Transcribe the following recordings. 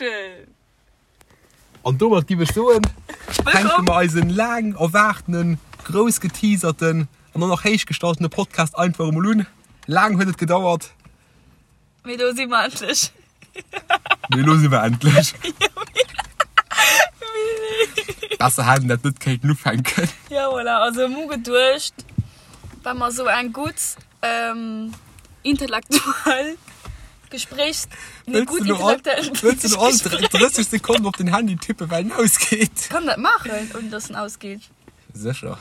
Action! An domat giff ech soen, fänke mer eisen laang erwaartenen, grouss geteaserten an och nach héich gestaltene Podcast einfach emol un. Laang huet et gedauert. Mee elo si mer endlech. Mee elo si mer endlech. Besser hätt een dat net kéinten ufänken. Ja, voilà. Also mir hu geduecht, well mer esou eng gutt intellektuell Gespréichs... Nee, gutt intellektuell Wëlls du elo all 30 Sekonnen op den Handy tippen, well en ausgeet? Kann dat maachen, ouni dass en ausgeet? Sécher.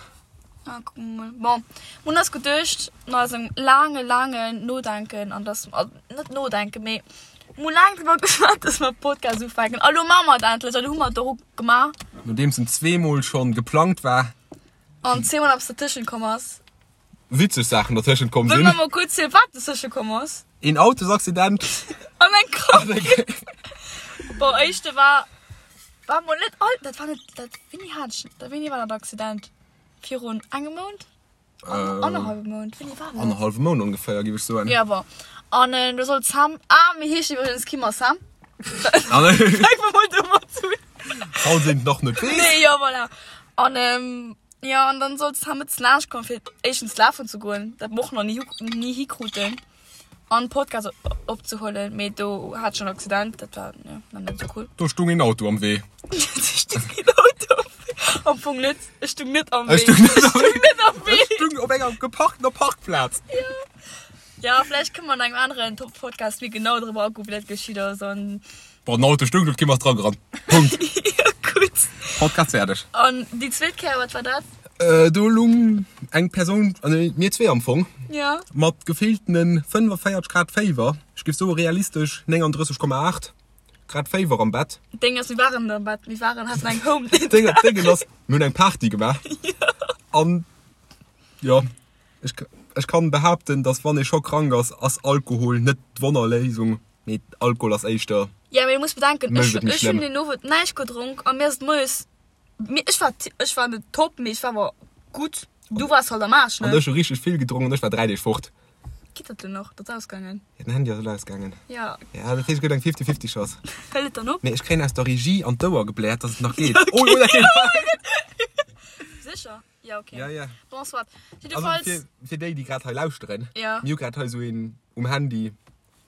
Ah, kucke mer mol. Bon, mir hunn eis geduecht, no eisem laange, laangen Nodenken an dass, net Nodenken, mee mir hu laang driwwer geschwat, dass mer Podcast ufänken. A lo maache mer et endlech a lo hu mer et och gemaach. Nodeems en zweemol schonn geplangt war. An zweemol eppes dertëschent komm ass. Witzeg Saachen dertëschent komm sinn. Wëlle mer mol kuerz zielen, wat dertësche komm ass? Een Autosaccident. An eng Krankheet. Bon, éischte war, war mol net all, dat war net, dat, wéini hat ech, wéini war dat Accident? Virun engem Mount? Annerhallwem Mount? Wéini war dat? Annerhallwem Mount ongeféier, géif ech soen. Ja, bon. An do sollt d'Sam, ah, mir heeschen iwwregens Kim a Sam. Fänke mer mol domat un. Falls een et nach net weess. Nee, ja, voilà. An jo, an dann sollt d'Sam net laanscht kommen, fir éischtens lafen ze goen, dat mer och nach ni, ni hikruten. An Podcast opzehuelen, mee do hat ech en Accident, dat war jo nach net esou cool. Do stung een Auto am Wee. Do stung een Auto am Wee. Am Fong net, ech stung net am Wee. Ech stung net am Wee. Net am Wee. Ech stung op enger geparktener Parkplaz. Jo. Ja, vläicht kënne mer an engem aneren Top-Podcast méi genau driwwer agoen, wéi dat geschitt ass an. Bon, den Auto stung do, d'Kim ass dra gerannt. Punkt. Jo, gutt. Podcast fäerdeg. An déi zweet Kéier, wat war dat? Do lung eng Persoun, also mir zwee am Fong, Ja. mat gefilltene 45 Grad Féiwer, ech géif soe realistesch 39,8 Grad Féiwer am Bett. Deng ass, mir waren am Bett, mir waren, haten eng Home. Deng, Dengen ass, mir hunn eng Party gemaach. An jo, ech, ech kann behaapten, dass wann ee scho krank ass, ass Alkohol net d'Wonnerléisung, mee Alkohol ass éischter, Ja, mee du muss bedenken, mécht ech, et méi ech hunn schlëmm. deen Owend näischt gedronk a mir ass et moies Mee ech war, ech war net top, mee ech war awer gutt. Du waars halt am Aarsch, ne? An ech hu richteg vill gedronk an ech war 3 Deeg fort. Geet dat elo nach? Dat ass ausgaangen. Ja, den Handy ass elo ausgaangen. Ja. Ja, dat heescht, et gëtt eng 50-50 Chance. Hëlt et dann op? Nee, ech kréien aus der Regie an d'Ouer gebläert, dass et nach geet. Oh, oh, dat geet! Sécher? Ja, okay. Ja, ja. Bon, soit. Also, Jiddefalls. fir, fir déi, déi grad hei lauschteren, Ja. mir hu grad hei esou een um Handy.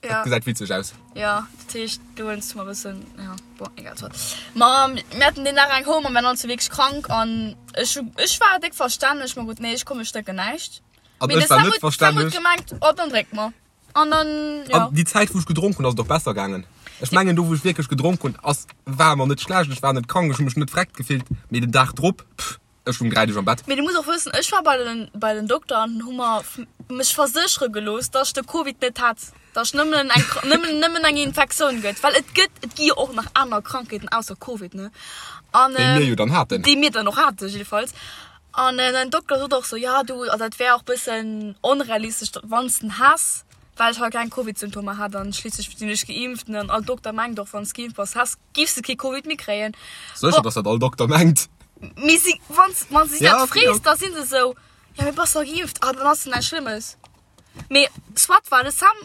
Ja. Dat gesäit witzeg aus. Ja, dat heescht, do hues du mer e bëssen, ja, bon, egal, soit. Ma mir haten deen Dag eng Home a mir waren all zwou wierklech krank an ech hu, ech war déck verstänneg, ma gutt, nee, ech komm, ech drénken näischt. An Mee de ech war Sam net huet, Sam huet verstänneg. gemengt, oh, dann drénk mer. An dann, ja. An déi Zäit, wou ech gedronk hunn, ass et och besser gaangen. Ech mengen, do wou ech wierklech gedronk hunn, ass, war mer net schlecht, ech war net krank, ech hu mech net vreckt gefillt, mee den Dag drop, pff. Ech lung 3 Deeg am Bett. Mee du muss och wëssen, ech war bei den, bei den Dokter an hu mer mech verséchere gelooss, dass ech de Covid net hätt, dass ech nëmmen eng, nëmmen, nëmmen eng Infektioun gëtt, well et gëtt, et gi jo och nach aner Krankheeten ausser Covid, ne? An, Déi mir jo dann haten. Déi mir dann och haten, jiddefalls. An den Dokter sot och sou, ja du, also dat wär och bëssen onrealistesch, wann s de en häss, well ech halt keng Covid-Symptomer hat an schliisslech sinn ech geimpft, ne? An all Dokter mengt och, wann s geimpft bass, häss, giffs de kee Covid méi kréien. Sécher, dass dat all Dokter mengt. Mee si, wann, wann si Ja, dat okay, frees, ok. da sinn se sou, ja mee bass dach geimpft, ah dann ass et näischt Schlëmmes. Mee soit war de Sam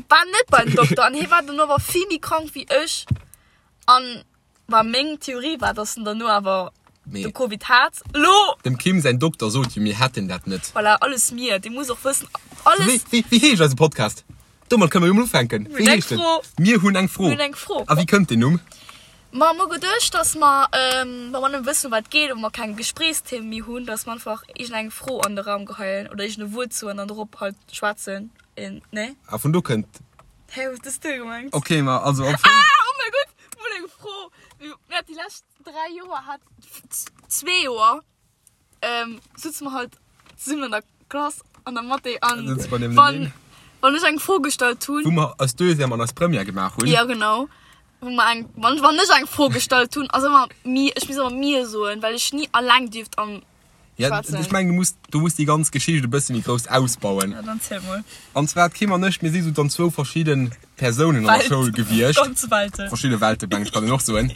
war net bei den Dokter an hie war dono awer vill méi krank wéi ech an war meng Theorie war, dass en dono awer Mee de Covid hat. Lo! Dem Kim säin Dokter sot jo, mir hätten dat net. Voilà, alles mir, dee muss och wëssen, alles. Wéi, wéi, wéi heescht eise Podcast? Domat kënne mer jo mol ufänken. Mir hunn eng Fro. Mir hunn eng Fro. Mir hunn eng Fro. A wéi kënnt deen Numm? Ma mir hu geduecht, dass mer, wa mer net wëssen, ëm wat et geet, oder mer keng Gespréichsthemen méi hunn, dass mer einfach iergendeng Fro an de Raum geheien oder iergend e Wuert soen an dorop halt schwätzen. Nee? A vun do kënnt. Hä, wat hues du gemengt? Ok, ma also am Fong. Ah, oh mäi Gott, mir hunn eng Fro. Mir hat déi lescht 3 Joer hat, zwee Joer, ähm, sutze mer halt zesummen an der Klass an der Mathé an Sutze mer wann, nieweneneen. wann ech eng Fro gestallt hunn. Wou mer eis Deuxième an eis Première gemaach hunn. Ja genau. Wou mer eng, wann, wann ech eng Fro gestallt hunn, ass ëmmer mir, ech muss ëmmer mir soen, well ech ni alleng dierft am Ja, schwätzen. ech mengen, du muss, du muss déi ganz Geschicht e bësse méi grouss ausbauen. Ja, dann ziel mol. An zwar, d'Kim an ech, mir si sou dann zwou verschidde Persounen an der Welt. Schoul gewiescht. Ganz Welten. Verschidde Welte, meng ech, kann een och soen.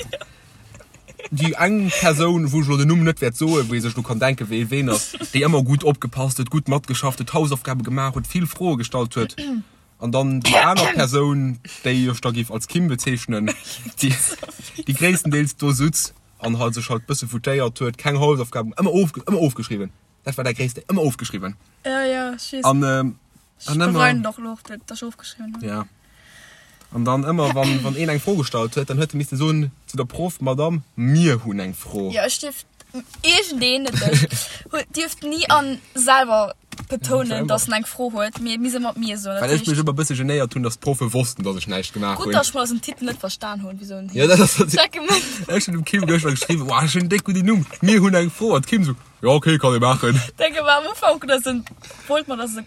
Déi eng Persoun, wou ech elo den Numm net wäert soen, wou ee sech elo kann denken, wee ween ass, déi ëmmer gutt opgepasst huet, gutt matgeschafft huet, Hausaufgabe gemaach huet, vill Froe gestallt huet. An dann déi aner Persoun, déi ech da géif als Kim bezeechnen, déi, déi gréisstendeels do sutz an halt sech halt bësse foutéiert huet, keng Hausaufgaben, ëmmer of, ëmmer ofgeschriwwen. Dat war dat Gréisste, ëmmer ofgeschriwwen. Ja, ja, ech weess. An, ähm, Ech an ëmmer. bereien et och elo och, dat ech ofgeschriwwen hunn. Ja. An dann ëmmer, wann, wann een eng Fro gestallt huet, dann huet e misste soen zu der Proff, Madame, mir hunn eng Fro. Ja, ech dierf iergendeen, net ech, huet, dierft ni an selwer betounen, dass en eng Fro huet, mee mir se mat mir soen. Well ech mech ëmmer e bësse genéiert hunn, dass d'Proffe wossten, dass ech näischt gemaach hunn. Gutt, dass ech mol eisen Titel net verstan hunn, wéi soen Ja, dat ass dat. Ech hunn dem Kim gëschter geschriwwen, Woah, ech hunn en déck gudden Numm, mir hunn eng Fro. An d'Kim sou, Jo, okay, kann ee maachen. Denke war am Ufank, dass en, wollt mer, dass e,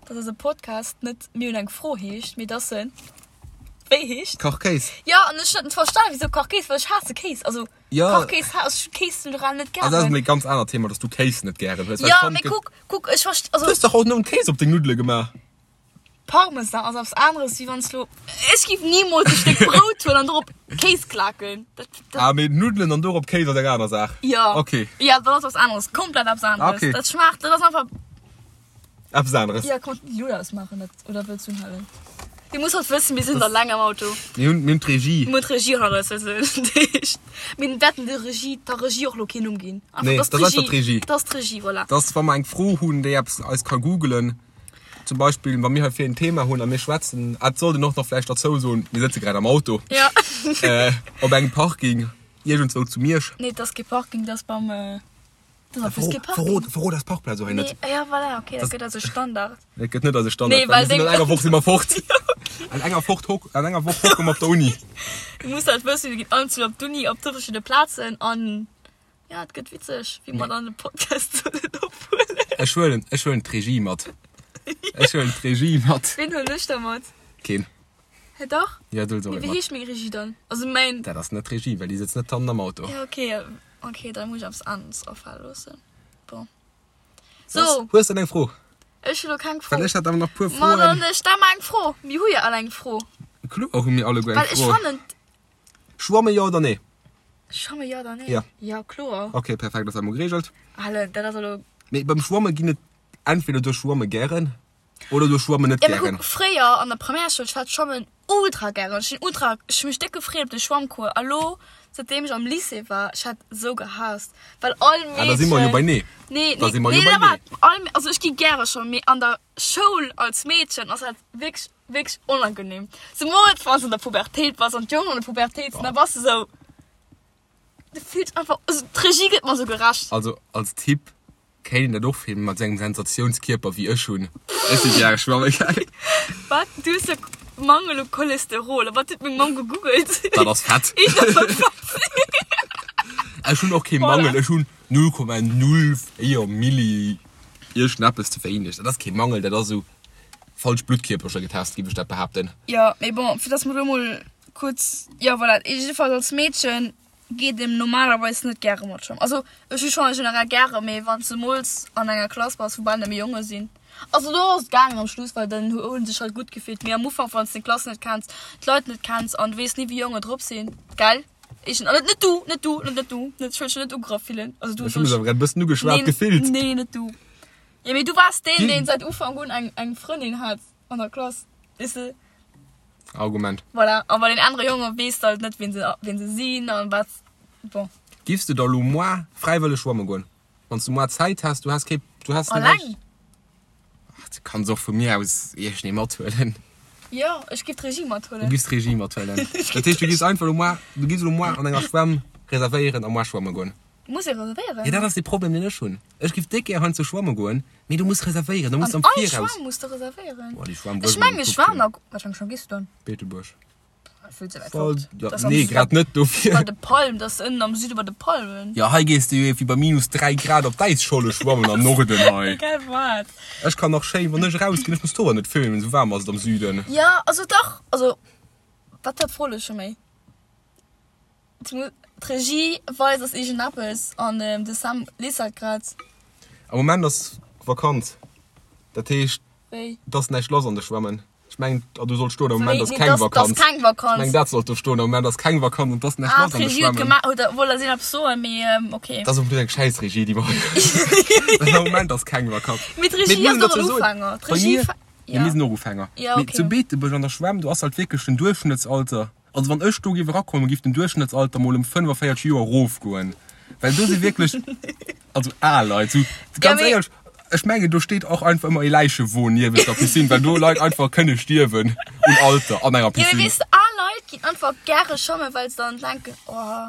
dass eise Podcast net Mir hunn eng Fro heescht, mee dass en wéi heescht? Kachkéis. Jo, an ech hat net verstan, wisou Kachkéis, well ech haasse Kéis. Also Ja. Kachkéis, ha ech Kéis generell net Also dat ass gären. emol e ganz anert Thema, dass du Kéis net gären hues. Well Jo, ech fannen, mee et gëtt. kuck, kuck, ech verst-, also Du hues dach haut nëmmen Kéis op deng Nuddele gemaach. Parmesan ass eppes aneres, wéi wann s lo, ech géif nimools e Stéck Brout huelen an dorop Kéis klaken. Dat, dat. Ah, mee Nuddelen an dorop Kéis ass eng aner Saach. Jo. Okay. Jo, dat ass eppes aneres, komplett eppes aneres. Okay. Dat schmaacht, dat ass einfach. Eppes aneres. Ja, kann die Luut ausmachen dat, oder wëlls du unhalen? Dir musst halt wëssen, mir sinn da laang am Auto. Mir hunn, mir hunn d'Regie. Mir hunn d'Regie hanner eis, also dat heescht, mir wäerten der Regie, der Regie och lo keen Numm ginn. Einfach, Nee, dat dat ass einfach d'Regie. Dat ass d'Regie, voilà. Dat ass, wa mer eng Fro hunn, déi eppes eis ka googelen, zum Beispill, wa mir hei fir en Thema hunn a mir schwätzen, ah, et sollt een och nach vläicht derzou soen, mir sëtze grad am Auto. Ja. Äh, op engem Parking, iergendzwou zu Miersch. Nee, dat ass kee Parking, dat ass beim. Das ass Verrot, kee Parking. verrot, verrot eis Parkplaz och hei net. Nee, ja, voilà, okay, dat gëtt also Standard. Dat gëtt net eise Standard, Nee, well well mir sinn an deng- enger Woch si mer fort. An enger fort hock, an enger Woch hocke mer op der Uni. Du muss halt wëssen, mir ginn allen zu op d'Uni op verschidde Plazen an ja, et gëtt witzeg, wéi mer dann de Podcast sollen ophuelen. Ech huelen, ech huelen d'Regie mat. Ech huelen d'Regie mat. Ween huelen ech da mat? Keen. Hä, dach? Ja, du huels och Mee ee wéi mat. heescht meng Regie dann? Also mäin. Dat ass net d'Regie, well déi sëtzt net hannen am Auto. Ja, okay. Ok, da muss ech eppes aneres afale loossen. Bon. So. Hues de eng Fro? Ech hu lo keng Fro. Well ech hat awer nach puer Ma Froen. dann stell mer eng Fro. Mir hu jo all eng Fro. Kloer hu mir alleguer eng Well ech Fro. fannen. Schwamme jo oder nee? Schwamme jo oder nee? Ja. Ja, kloer. Ok, perfekt, ass dat mol geregelt. Allen, dat ass elo. Mee beim Schwamme ginn et entweder du schwamme gären Oder du schwammen net Ja, mee gären. kuck, fréier an der Primärschoul, ech hat Schwammen ultra gären. Ech sinn ultra, ech hu mech déck gefreet op de Schwammcours. A lo, säitdeem ech am Lycée war, ech hat esou gehaasst, well all Ah, da si mer jo bei Meedchen, nee. nee, Da nee, si mer jo nee, bei da nee. waart, all, also ech gi gäre schwammen, mee an der Schoul als Meedchen ass dat wierklech, wierklech onangenehm. Zemools wann s de an der Pubertéit bass an d'Jongen an der Pubertéit sinn, da bass de sou, du fills einfach, also d'Regie gëtt mer sou gerecht. Also als Typ Kéint een dat och filmen mat sou engem Sensationskierper wéi ech hunn. Ech si gäre schwamme gaangen. Wat? Du hues jo Mangel u Cholesterol. A wat huet meng Mamm gegoogelt? Dat ass Fett. Eech dat soll Fett sinn. Ech hunn och kee Mangel, ech hunn 0,04 Milli iergendeppes ze wéineg. Dat ass kee Mangel, dat ass esou falsch Bluttkierpercher getest, géif ech dat behaapten. Jo, mee bon, fir dass mer do mol kuerz, jo voilà, jiddefalls als Meedchen Geet een normalerweis net gäre mat schwammen. Also ech hu schonn generell gäre, mee wann s de mools an enger Klass bass wou bal nëmme Jonge sinn, also do ass et gaangen am Schluss, well dann hu sech halt gutt gefillt. Mee am Ufank wann s de d'Klass net kenns, d'Leit net kenns an du weess ni wéi Jonge drop sinn, gell? Ech net net du, net du, net net du, net ech wëll dech net ugegraff fillen, also du Ech hu mech awer grad e bëssen ugeschwat gefillt. Nee, net du. Jo mee du waars deen deen säit Ufank un eng eng Frëndin hat an der Klass, weess de. Argument. Voilà, a bei den anere Jonge weess de halt net, wien se, wien se sinn an wat. Bon. Giffs de da lo moar fräiwëlleg schwamme goen? Wann s du moar Zäit häss, du häss kee, du häss net Alleng? Ach, du kanns och vu mir aus iergendee mathuelen. Jo, ech giff d'Regie mathuelen. Du giffs d'Regie mathuelen. Dat heescht, du giffs einfach lo moar, du giffs lo moar an enger Schwämm reservéieren a moar schwamme goen. Muss ee reservéieren? Jo, dat ass de Problem, deen ech hunn. Ech giff déck gär heiansdo schwamme goen, mee du muss reservéieren, du muss An am all Viraus. Schwamm muss de reservéieren? Boah, déi Schwamm, wou Ech ech mol mengen, gekuckt ech war hunn. nach. Wat fir eng Schwamm gees du dann? Beetebuerg. Vill ze wäit Voll, fort. ja, Dat ass am nee, Süde grad net dofir. Bei de Palmen, dat ass ënnen am Süde bei de Palmen. Jo, hei gees de jo iergendwéi bei minus 3 Grad op d'Äisscholle schwammen am Norden hei. Egal wat. Ech kann nach schéin, wann ech erausginn, ech muss d'Hoer net föhnen, esou waarm ass et am Süden. Jo, also dach, also wat war d'Fro elo scho méi? D'Regie weist eis iergendeppes an de Sam liest dat grad. Am Moment ass Vakanz, dat heescht Wéi? et ass näischt lass an de Schwämmen. Ech mengen, ah do sollt stoen, am Moment ass Nee, keng dass, dass Vakanz. keng Ech Vakanz. mengen dat sollt do stoen, am Moment ass keng Vakanz an et ass näischt Ah, lass an de d'Regie huet Schwämmen. gemaach, huet, wollt eis eppes soen, mee okay. Dat ass och eng schäiss Regie déi mer hei hunn. Well am Moment ass keng Vakanz. Mee Mee d'Regie muss ass een och dozou en soen, Ufänger. bei D'Regie mir. Mee mir sinn och Ufänger. Ja, Mee okay. zu Beetebuerg an der Schwämm, do ass halt wierklech den Duerchschnëttsalter, also wann ech do géif erakommen, géif den Duerchschnëttsalter mol ëm 45 Joer erofgoen. Well do si wierklech, also al Leit, sou ganz mee- éierlech, ech mengen do steet och einfach ëmmer ee Läichewon niewent der Piscine, well do Leit einfach kënne stierwen un Alter an enger Ja, mee Piscine. weess de, al Leit ginn einfach gäre schwammen, well se dann denken, oh,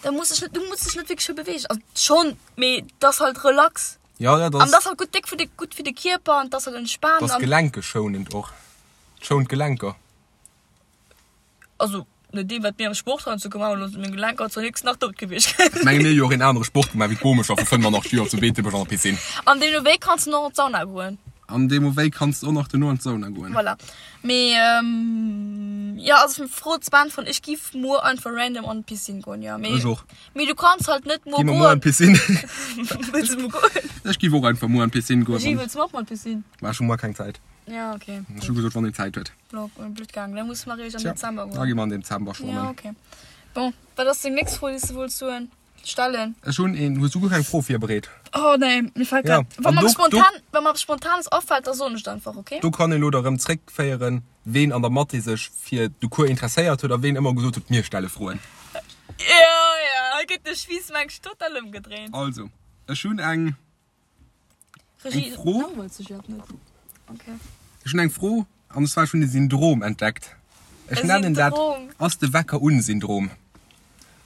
da muss ech net, du muss dech net wierklech vill beweegen. Also schonn, mee dat ass halt relax. Ja, ja, dat An dat ass, ass halt gutt déck fir de, gutt fir de Kierper an dat ass halt entspaant dat ass an. gelenkeschonend och. Et schount d'Gelenker. Also no deem wat mir am Sport heiansdo gemaach hunn, sinn meng Gelenker zwar nix nach dout gewiescht. Ech menge mir hu jo och een anere Sport gemaach wéi d'Bomecher vu 85 Joer zu Beetebuerg an der Piscine. An deemno wéi kanns de noch an d'Sauna goen. An deemno wéi kanns de och nach duerno an d'Sauna goen. Voilà. Mee jo, also Fro ze beäntweren, ech giff muer einfach random an d'Piscine goen, jo. Mee Ech och. mee du kanns halt net muer Gi mer muer an goen. d'Piscine? Wëlls de muer goen? Ech giff och einfach muer an d'Piscine goen. Regie, wëlls du och muer an d'Piscine? Mä ech hu muer keng Zäit. Ja, okay. Ech hu gesot, wann een Zäit huet. Blöd gaangen. Da musse mer eréischt am Tja, Dezember da goen. gi mer an Dezember schwammen. Ja, okay. Bon, wat ass deng nächst Fro, déi s de wollts soen, stellen? Ech hunn een. Hues du guer keng Fro virbereet? Oh nee, mir fält Ja, grad. Wa an mer do, do, spontan, wa mer Spontanes afält, da soen ech et einfach, okay? do kann een elo da rëm zréckféieren, ween an der Mathé sech fir de Cours interesséiert huet a ween ëmmer gesot huet, mir stelle Froen. Ja, ja, hei gëtt de Spiiss mengs total ëmgedréint. Also, ech hunn eng. Regie, Eng Fro? langweilt sech iwwerhaapt net. Okay. Ech hunn eng Fro, an zwar ech hunn e Syndrom entdeckt. Ech E nennen dat Syndrom. Ass de Wecker un Syndrom.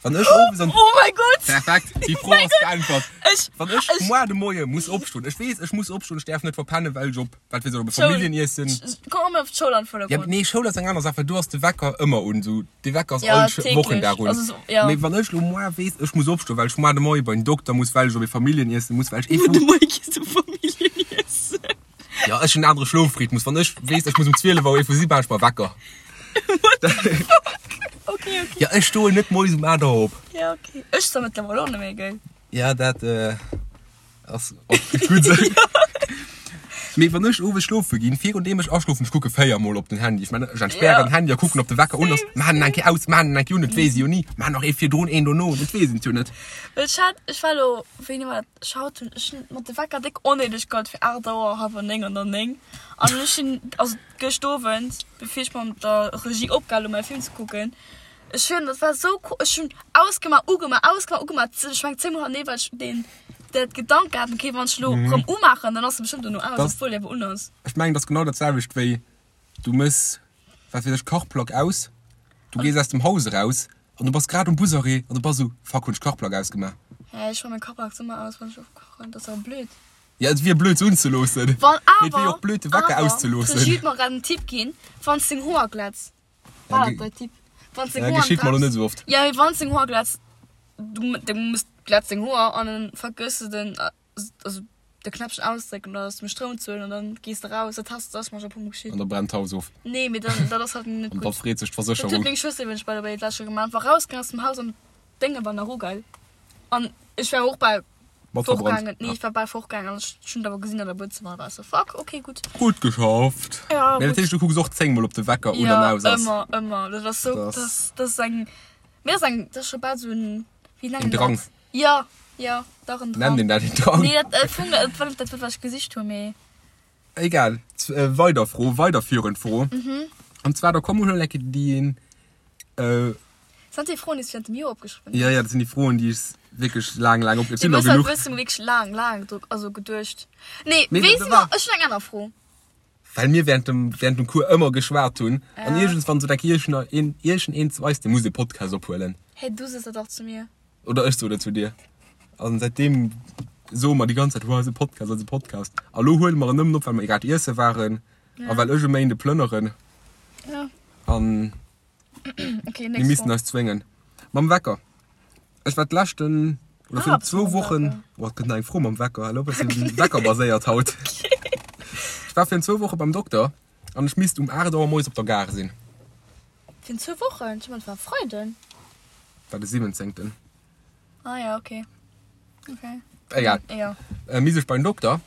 Wann ech owes an. Oh mäi Gott! Perfekt, déi Fro ass beäntwert. Ech, Wann ech ech, moar de Moie muss opstoen, ech weess, ech muss opstoen, ech däerf net verpennen, well ech op, wat weess ech, op e Schoul. Familljeniessen. Komm mer op d'Schoul an Ja, Vordergrond. nee, Schoul ass eng aner Saach, well do ass de Wecker ëmmer un, sou de Wecker ass Ja, all täglich. Wochendag un. Also so, ja. Mee wann ech lo moar weess, ech muss opstoen, well ech moar de Moie bei den Dokter muss, well ech op e Familljeniessen muss, well ech ee Muer de vu. Moie gees du Familljeniessen. Ja, ech hunn en anere Schlofrhythmus. Wann ech weess, ech muss um 12 Auer ee vu si, maan ech mer Wecker. Okay, okay. Ja, ech stoen net moies um 8 Auer op. Ja, okay. Ech zwar mëttlerweil och net méi, gell? Ja, dat ass och gutt esou. Mee wann ech owes schlofe ginn, virun deem ech aschlofen, ech kucke 4 mol op den Handy. Ech mengen, ech entspären den Handy a kucken, ob de Wecker un ass. Maan en eng Kéier aus, maan en eng Kéier un, et weess ee jo ni. Maan nach ee virdrun, een dono, et weess een et jo net. Well ech hat, ech war elo, wéini war dat, ech haut hunn ech hunn mat de Wecker déck onnéideg gehat fir 8 Auer, hallwer 9 an der 9. An ech hunn, also gëscht Owend, bevir ech mat der Regie opgehal hunn mäi Film ze kucken, ech hunn, dat war esou ko, ech hunn ausgemaach, ugemaach, ausgemaach, ugemaach, ech meng 10 mol hanneree, well ech deen Dat Gedanke hat, okay, wann ech lo rëm umaachen, dann ass se bestëmmt dono aus, obwuel déi awer un ass. Ech mengen, dat ass genau dat selwecht wéi du mëss, wat weess ech, Kachplack aus, du gees aus dem Haus eraus an du bass grad um Busarrêt an du bass esou, fuck, hunn ech d'Kachplack ausgemaach? Hä, ech maache meng Kachplack ëmmer aus, wann ech ofkachen, dat ass awer blöd. Ja, et wier blöd se unzeloossen, Wann mee et wier awer, och blöd de Wecker awer, auszeloossen. d'Regie huet mer grad en Tipp ginn, wann s deng Hoer glätz, war dat däi Tipp? Wann s deng Ja, Hoer geschitt mer lo net esou oft. Ja, mee wann s deng Hoer glätz, du, du muss glätz deng Hoer an dann vergëss de den, also de Knäppchen ausdrécken oder aus dem Stroum ze huelen an dann gees de raus. Dat has, dat ass mer scho e puer mol geschitt. An da brennt d'Haus of. Nee, mee dann, dat ass halt net An da gutt. freet sech Dat huet d'Versécherung. meng Schwëster iwwregens by the way d'lescht Joer gemaach. War rausgaangen aus dem Haus an d'Dénge war nach ugeil. An ech war och bal Mat verbrannt. fortgaangen. Nee, ech war bal fortgaangen an ech hunn et awer gesinn an der Buedzëmmer an war ech sou, fuck, okay, gutt. Gutt geschafft. Ja, Mee dat gutt. heescht, du kucks och 10 mol ob de Wecker un an Ja, aus ass. ëmmer, ëmmer. Dat ass sou, Dat dat ass. ass, dat ass eng, Mir ass eng, dat ass scho bal sou en, wéi nennen En Drang. dat? Ja, ja, dach en Drang. Nennt een dat en Drang? Nee, dat, dat fung, dat war net dat Wuert, wat ech gesicht hunn, mee. Egal, weider Fro, weiderführend Fro. Mhm. An zwar, da komm mol eng Kéier déi een, äh. Sind dat déi Froen, déi s du während dem Joer opgeschriwwen hues? Ja, ja, dat sinn déi Froen, déi ech wierklech laang, laang op, et Du sinn der hues halt genuch. bëssen wierklech laang, laang dru, also geduecht. Nee, Nee, weess dat de war. wat, ech hunn eng aner Fro. Well mir während dem, während dem Cours ëmmer geschwat hunn. An Ja. iergendswann sot eng Kéier iergend een zu eis, dee muss e Podcast ophuelen. Hey, du sos dat dach zu mir. Oder ech sot et zu dir. An säitdeem soe mer déi ganz Zäit, Wow, eise Podcast, eise Podcast. A lo huele mer en nëmmen op, well mer grad iesse waren a well ech e Méinde plënneren. Ja. An Okay, mir nächst missten Fro. eis zwéngen. Mam Wecker. Ech war d'leschten, oder Ah, virun bist du zwou mam Wochen, Wecker. oh, et gëtt nach eng Fro mam Wecker, elo bëssen weckerbaséiert haut. Ech war virun zwou Woche beim Dokter an ech misst um 8 Auer moies op der Gare sinn. Virun zwou Wochen? Ech mengen, et war e Freiden. War de 17. Ah ja, okay. Okay. Egal. Ja. Äh, misst ech beim Dokter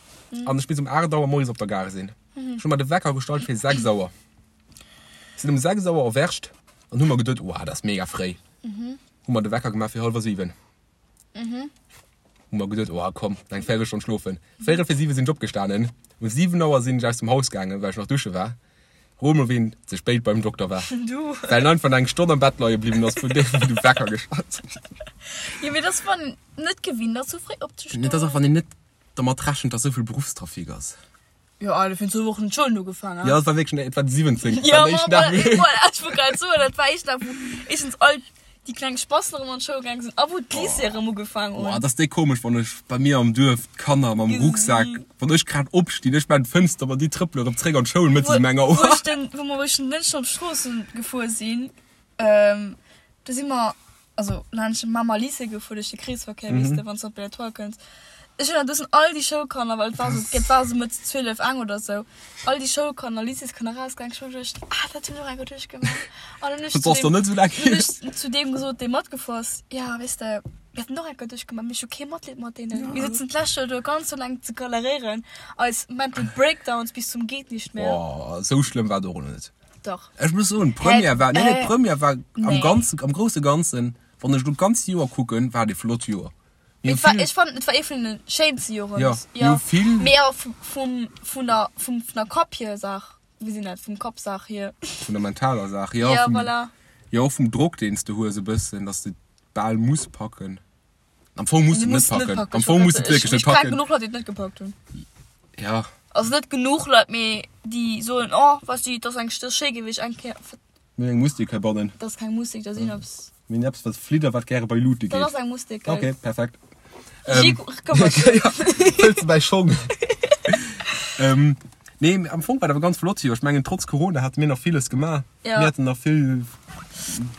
an ech misst um 8 Auer moies op der Gare sinn. Ech hu mer de Wecker gestallt fir 6 Auer. Sinn um 6 Auer erwächt an hu mer geduet, Wow, dat ass mega fréi. Hu mer de Wecker gemaach fir hallwer 7. Hu mer geduet, oh komm, eng Véirelstonn schlofen. Véirel fir 7 sinn ech opgestanen. Um 7 Auer sinn ech aus dem Haus gaangen, well ech nach dusche war. Rot mol ween ze spéit beim Dokter war. Du. Well en einfach nach eng Stonn am Bett leie bliwwen ass vun deem wou de Wecker geschallt huet. Jo mee dass wann een net gewinnt ass sou fréi opzestoen. Et ass och wann een net dermat rechent dass souvill Beruffstrafic ass. Jo Alter, virun zwou Wochen hunn d'Schoulen ugefaangen. Jo et war wierklech, et war de 17. Jo ma voilà, ech wollt grad soen, dat war éischt Dag wou éischtens all déi kleng Spassen erëm an d'Schoul gaange sinn a wou d'Lycéeë erëm ugefaangen hunn. Boah, dat ass déi komesch, wann ech bei mir am Duerf d'Kanner mam Rucksak, wann ech grad opstinn, ech maan d'Fënster op an déi trëppelen erëm zréck an d'Schoul mëttes um enger Wou Auer. ech den, wou mer wou ech den Dënschden op d'Strooss gefuer sinn, do si mer, also laanscht de Mamer Lycée gefuer, duerch de Kreesverkéier, weess de, wann s de op Belle-Étoile kënns. Ech hunn dat, do sinn all déi Schoulkanner, well et war esou, et war esou mëtt 12, eng oder esou, all déi Schoulkanner, Lycéeskanner erausgaangen. Ech hu geduecht, ah, dat hunn ech och eng Kéier duerchgemaach. An dann hunn ech Dat ass zu doch deem, net esou laang hunn hier. ech zu deem gesot, dee matgefuer ass, ja, weess de, mir haten och eng Kéier duerchgemaach, mee ech hu kee Matleed mat deenen. Mir sëtzen d'lescht Joer do ganz esou laang ze galeréieren, eis Mental Breakdowns bis zum Geet-nicht-mehr. Boah, esou schlëmm war et och elo net. Dach. Ech muss soen, d'Première war, nee, nee, Äh, d'Première war am nee. ganzen, am grousse Ganzen, wann ech elo d'ganzt Joer kucken, war et e flott Joer. Mir Et war, hu vill, ech fannen, et war ee vun den schéinste Joren. Ja, mir hu vill. Mee awer vum, vum, vun der, vum, vun der Kapp hier Saach, wéi sinn dat, vum Kappsaach hier. Vun der mentaler Saach, jo. Ja, vum, voilà. Jo, och vum Drock, deen s de hues e bëssen, dass de bal muss packen. Am Fong muss Du du et net musst net packen. packen. Am Fong muss du et wierklech net Ech kenne packen. genuch Leit, déi et net gepackt hunn. Ja. Also net genuch Leit, mee déi soen, oh, weess du, et ass eng, et ass schéi gewiescht, eng Kéier. Mir hunn eng Mustik heibannen. Dat ass keng Mustik, dat sinn eppes. Mir hunn eppes, wat flitt a wat gäre bei Luute geet. Dat ass eng Mustik, gell? Okay, perfekt. Regie, këmmert sech. Ja, fëlls de mäi Schong. Ähm, nee, am Fong war et awer ganz flott Joer. Ech mengen, trotz Corona hate mir nach villes gemaach. Ja. Mir haten nach vill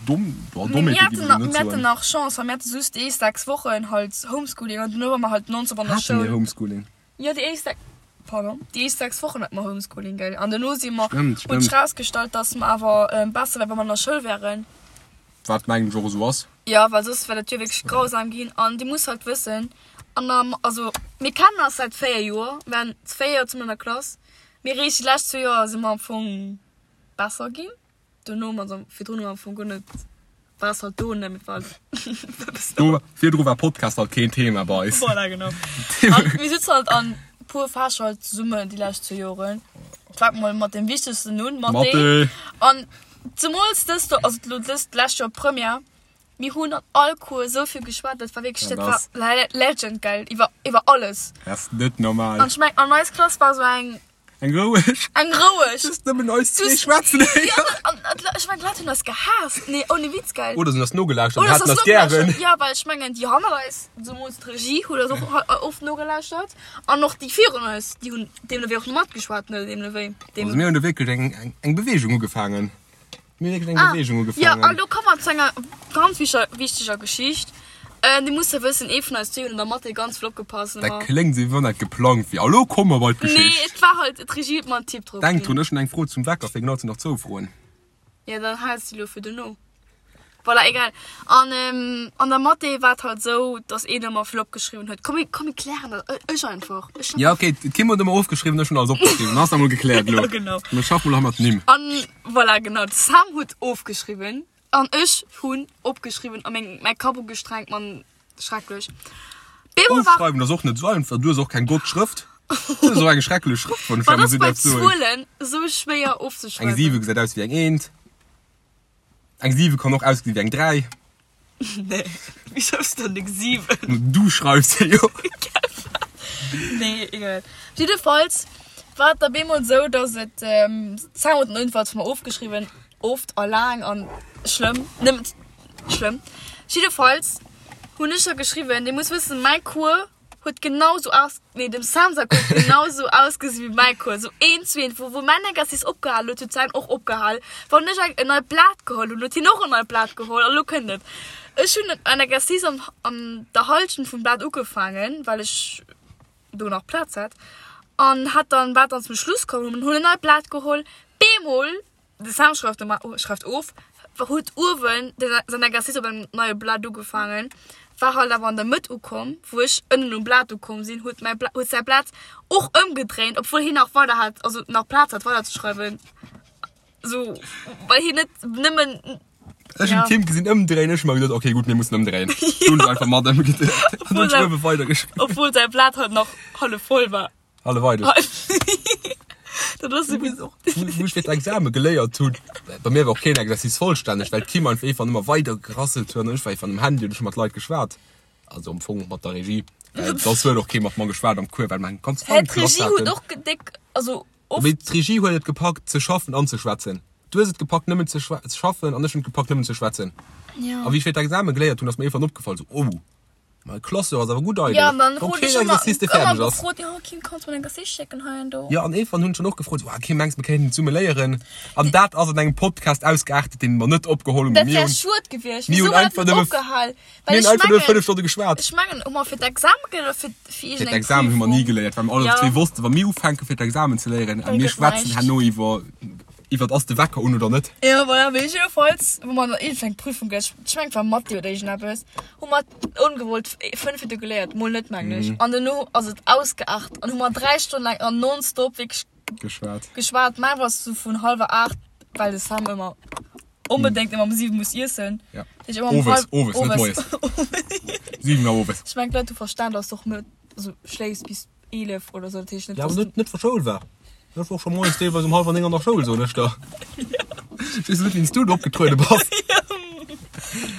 domm, boah, Mir Dommheete géif haten ech elo nach, net mir haten soen. nach Chance, well mir hate just déi éischt 6 Wochen halt Homeschooling an duerno ware mer halt nonstop an der Hate mir Schoul. Homeschooling? Jo, déi éischt 6, pardon, déi éischt 6 Wochen hate mer Homeschooling, gell. An duerno si mer, Stimmt, huet stimmt. sech rausgestallt, dass mer awer besser wär, wa mer an der Schoul wären. Wat mengen ech och esou ass. Jo, well soss wär dat Joer wierklech grausam ginn. An Dir musst halt wëssen, an der, also mir kennen eis säit 4 Joer, mir waren 4 Joer zesummen an der Klass, mee eréischt déi lescht zwou Joer si mer am Fong besser ginn. Dono, also virdrun hu mer am Fong guer net, war es halt do net, mee war halt eppes do. Do, virdru war Podcast halt keen Thema bei eis. Voilà, genau. An mir sitzen halt an puer Fächer halt zesummen déi lescht zwou Joren. Fänke mol mat deem wichtegsten un, Mathé. Mathé. An zemools dëst, also elo dëst lescht Joer Première, mir hunn an all Cours esou vill geschwat, dat war wierklech, Dat dat war ass. legend, gell, iwwer, iwwer alles. Dat ass net normal. An ech meng, an eis Klass war esou eng. Eng roueg. Eng roueg. Just nëmmen eis zwee schwätzen héieren. Ja, an, an, ech mengen, d'Leit hunn eis gehaasst. Nee, ohne Witz, gell. Oder se hunn eis nogelauschtert an Oder haten se eis eis nogelauschtert. gären. Ja, well ech mengen, déi hannert eis, zemools d'Regie, huet eis och oft nogelauschtert. An och déi virun eis, déi hunn deemno wéi och matgeschwat, ne, deemno wéi. Also mir hunn do wierklech eng, eng, eng Beweegung ugefaangen. Mir hunn wierklech eng Ah, Beweegung ja, ugefaangen. an do komme mer zu enger ganz wicher, wichteger Geschicht. Äh, Dir musst jo wëssen, ee vun eis zwee hunn an der Mathé ganz vill opgepasst. Dat kléngt esou, wéi wann dat geplangt wier. A lo komme mer bei Nee, d'Geschicht. et war halt, d'Regie huet mer en Tipp drop Denk ginn. drun, ech hunn eng Fro zum Wecker, fir genau ze nach zwou Froen. Ja, dann haals de lo fir dono. Voilà, egal. An ähm, an der Mathé war et halt esou, dass een ëmmer vill opgeschriwwen huet. Komm, mir, komm, mir klären dat. Ech ech einfach. Ech Ja, okay, d'Kim huet ëmmer ofgeschriwwen, ech hunn alles opgeschriwwen. Dann ass dat mol gekläert elo. Ja, genau. Mir schaffen mol hei mat Nimm. An voilà, genau, de Sam huet ofgeschriwwen an ech hunn opgeschriwwen a meng, mäi Kapp ugestrengt, Mann, schrecklech. Bemol war. Ofschreiwen ass och net esou einfach. Du hues och keng gott Schrëft. Du hues och eng schrecklech Schrëft, wann ech Wat dat mol ass esou bei däerf soen. Zuelen esou schwéier Eng ofzeschreiwen? 7 gesäit aus wéi eng Eent. Eng 7 kann och ausgesinn wéi eng 3. Nee, wéi schreifs du dann eng 7? Du schreifs se jo. Nee, egal. Jiddefalls war et da bemol esou, dass et, d'Sam huet den Unfall zwar ofgeschriwwen, oft a laang an schlëmm, nëmmen schlëmm. Jiddefalls hunn ech da geschriwwen, Dir musst wëssen, mäi Cours huet genau sou aus, nee dem Sam säi Cours huet genau sou ausgesi wéi mäi Cours, sou een zu een. Wou wou mäin Exercice opgehal huet, huet säin och opgehal. Wann ech eng en neit Blat geholl hunn, huet hien och en neit Blat geholl. A lo kënnt et, ech hunn en Exercice an an der Hallschent vum Blat ugefaangen, well ech do nach Plaz hat, an hat dann war dann zum Schluss komm, hunn en neit Blat geholl, bemol De Sam schreift normal, schreift of, huet uewen säin Exercice op engem neie Blat ugefaangen, war halt awer an der Mëtt ukomm, wou ech ënnen um Blat ukomm sinn, huet mäi Blat, huet säi Blat och ëmgedréint, obwuel hien nach weider hat, also nach Plaz hat weider ze schreiwen, sou well hien net nëmmen. Ech hunn d'Kim gesinn ëmdréien, ech hu mer geduet, okay gutt, mir mussen ëmdréien. Du hunn ech einfach mat ëmgedréit an hunn ech uewe weidergeschriwwen. Obwuel säi Blat halt nach hallef voll war. Hallef eidel. Dat ass esou wéi. Wou ech fir d'Exame geléiert hunn, bei mir war och keen Exercice vollstänneg, well d'Kim einfach iergendwann ëmmer weider gerasselt huet an ech war iergendwann um Handy an ech hu mat Leit geschwat. Also am Fong mat der Regie. Well soss huet och kee mat mer geschwat am Cours, well mer eng ganz Hä, fein d'Regie Klass huet haten. och déck, also oft. Mee d'Regie huet et gepackt ze schaffen an ze schwätzen. Du hues et gepackt nëmmen ze schaffen an ech hunn et gepackt nëmmen ze schwätzen. Ja. A wéi ech fir d'Exame geléiert hunn, ass mir iergendwann opgefall, sou, oh, mei Classeur ass awer gutt Ja, eidel. an dann Wann krut keen ech ëmmer, Exercice dee ëmmer fäerdeg ass. gefrot, jo Kim, kanns du mer en Exercice schécken hei an do? Jo, an iergendwann hunn ech dann och gefrot, sou, ah Kim, mengs du mir kéinten zesumme léieren? An dat ass an engem Podcast ausgeartet, deen mer net opgeholl hunn, mee Dat mir wär hunn, schued gewiescht. mir Wieso hunn huet einfach dat net nëmme, opgehal? mir Well hunn ech einfach nëmme mengen, 5 Stonne geschwat. ech mengen, hu mer fir d'Exame geléiert oder fir, fir Fir iergendeng d'Examen hu mer ni Prüfung? geléiert, well mer alle Ja. zwee wossten, wa mir ufänke fir d'Examen ze léieren, a Da mir gëtt schwätzen näischt. herno iwwer, iwwer ass de Wecker un oder net. Jo, voilà, mee jiddefalls, wou mer an iergendeng Prüfung geléiert, ech mengen et war Mathé oder iergendeppes, hu mer ongewollt 5 Minutte geléiert, mol net mengen ech, an dono ass et ausgeaart an hu mer 3 Stonnen laang an nonstop wierklech Geschwat. geschwat. Mä war sou vun hallwer 8, well de Sam ëmmer onbedéngt ëmmer um 7 muss iessen. Ja. Dat heescht ëmmer um Owes, halb, owes, net owes. moies. 7 Auer owes. Ech mengen d'Leit hu verstan, dass du och net, also schléifs bis 11 oder sou, dat heescht net, Ja, awer dass du net, net wa Schoul war. Ech war och scho moies deelweis um hallwer 9 an der Schoul, soen ech der. Ech weess net, wéi s du do opgetruede bass.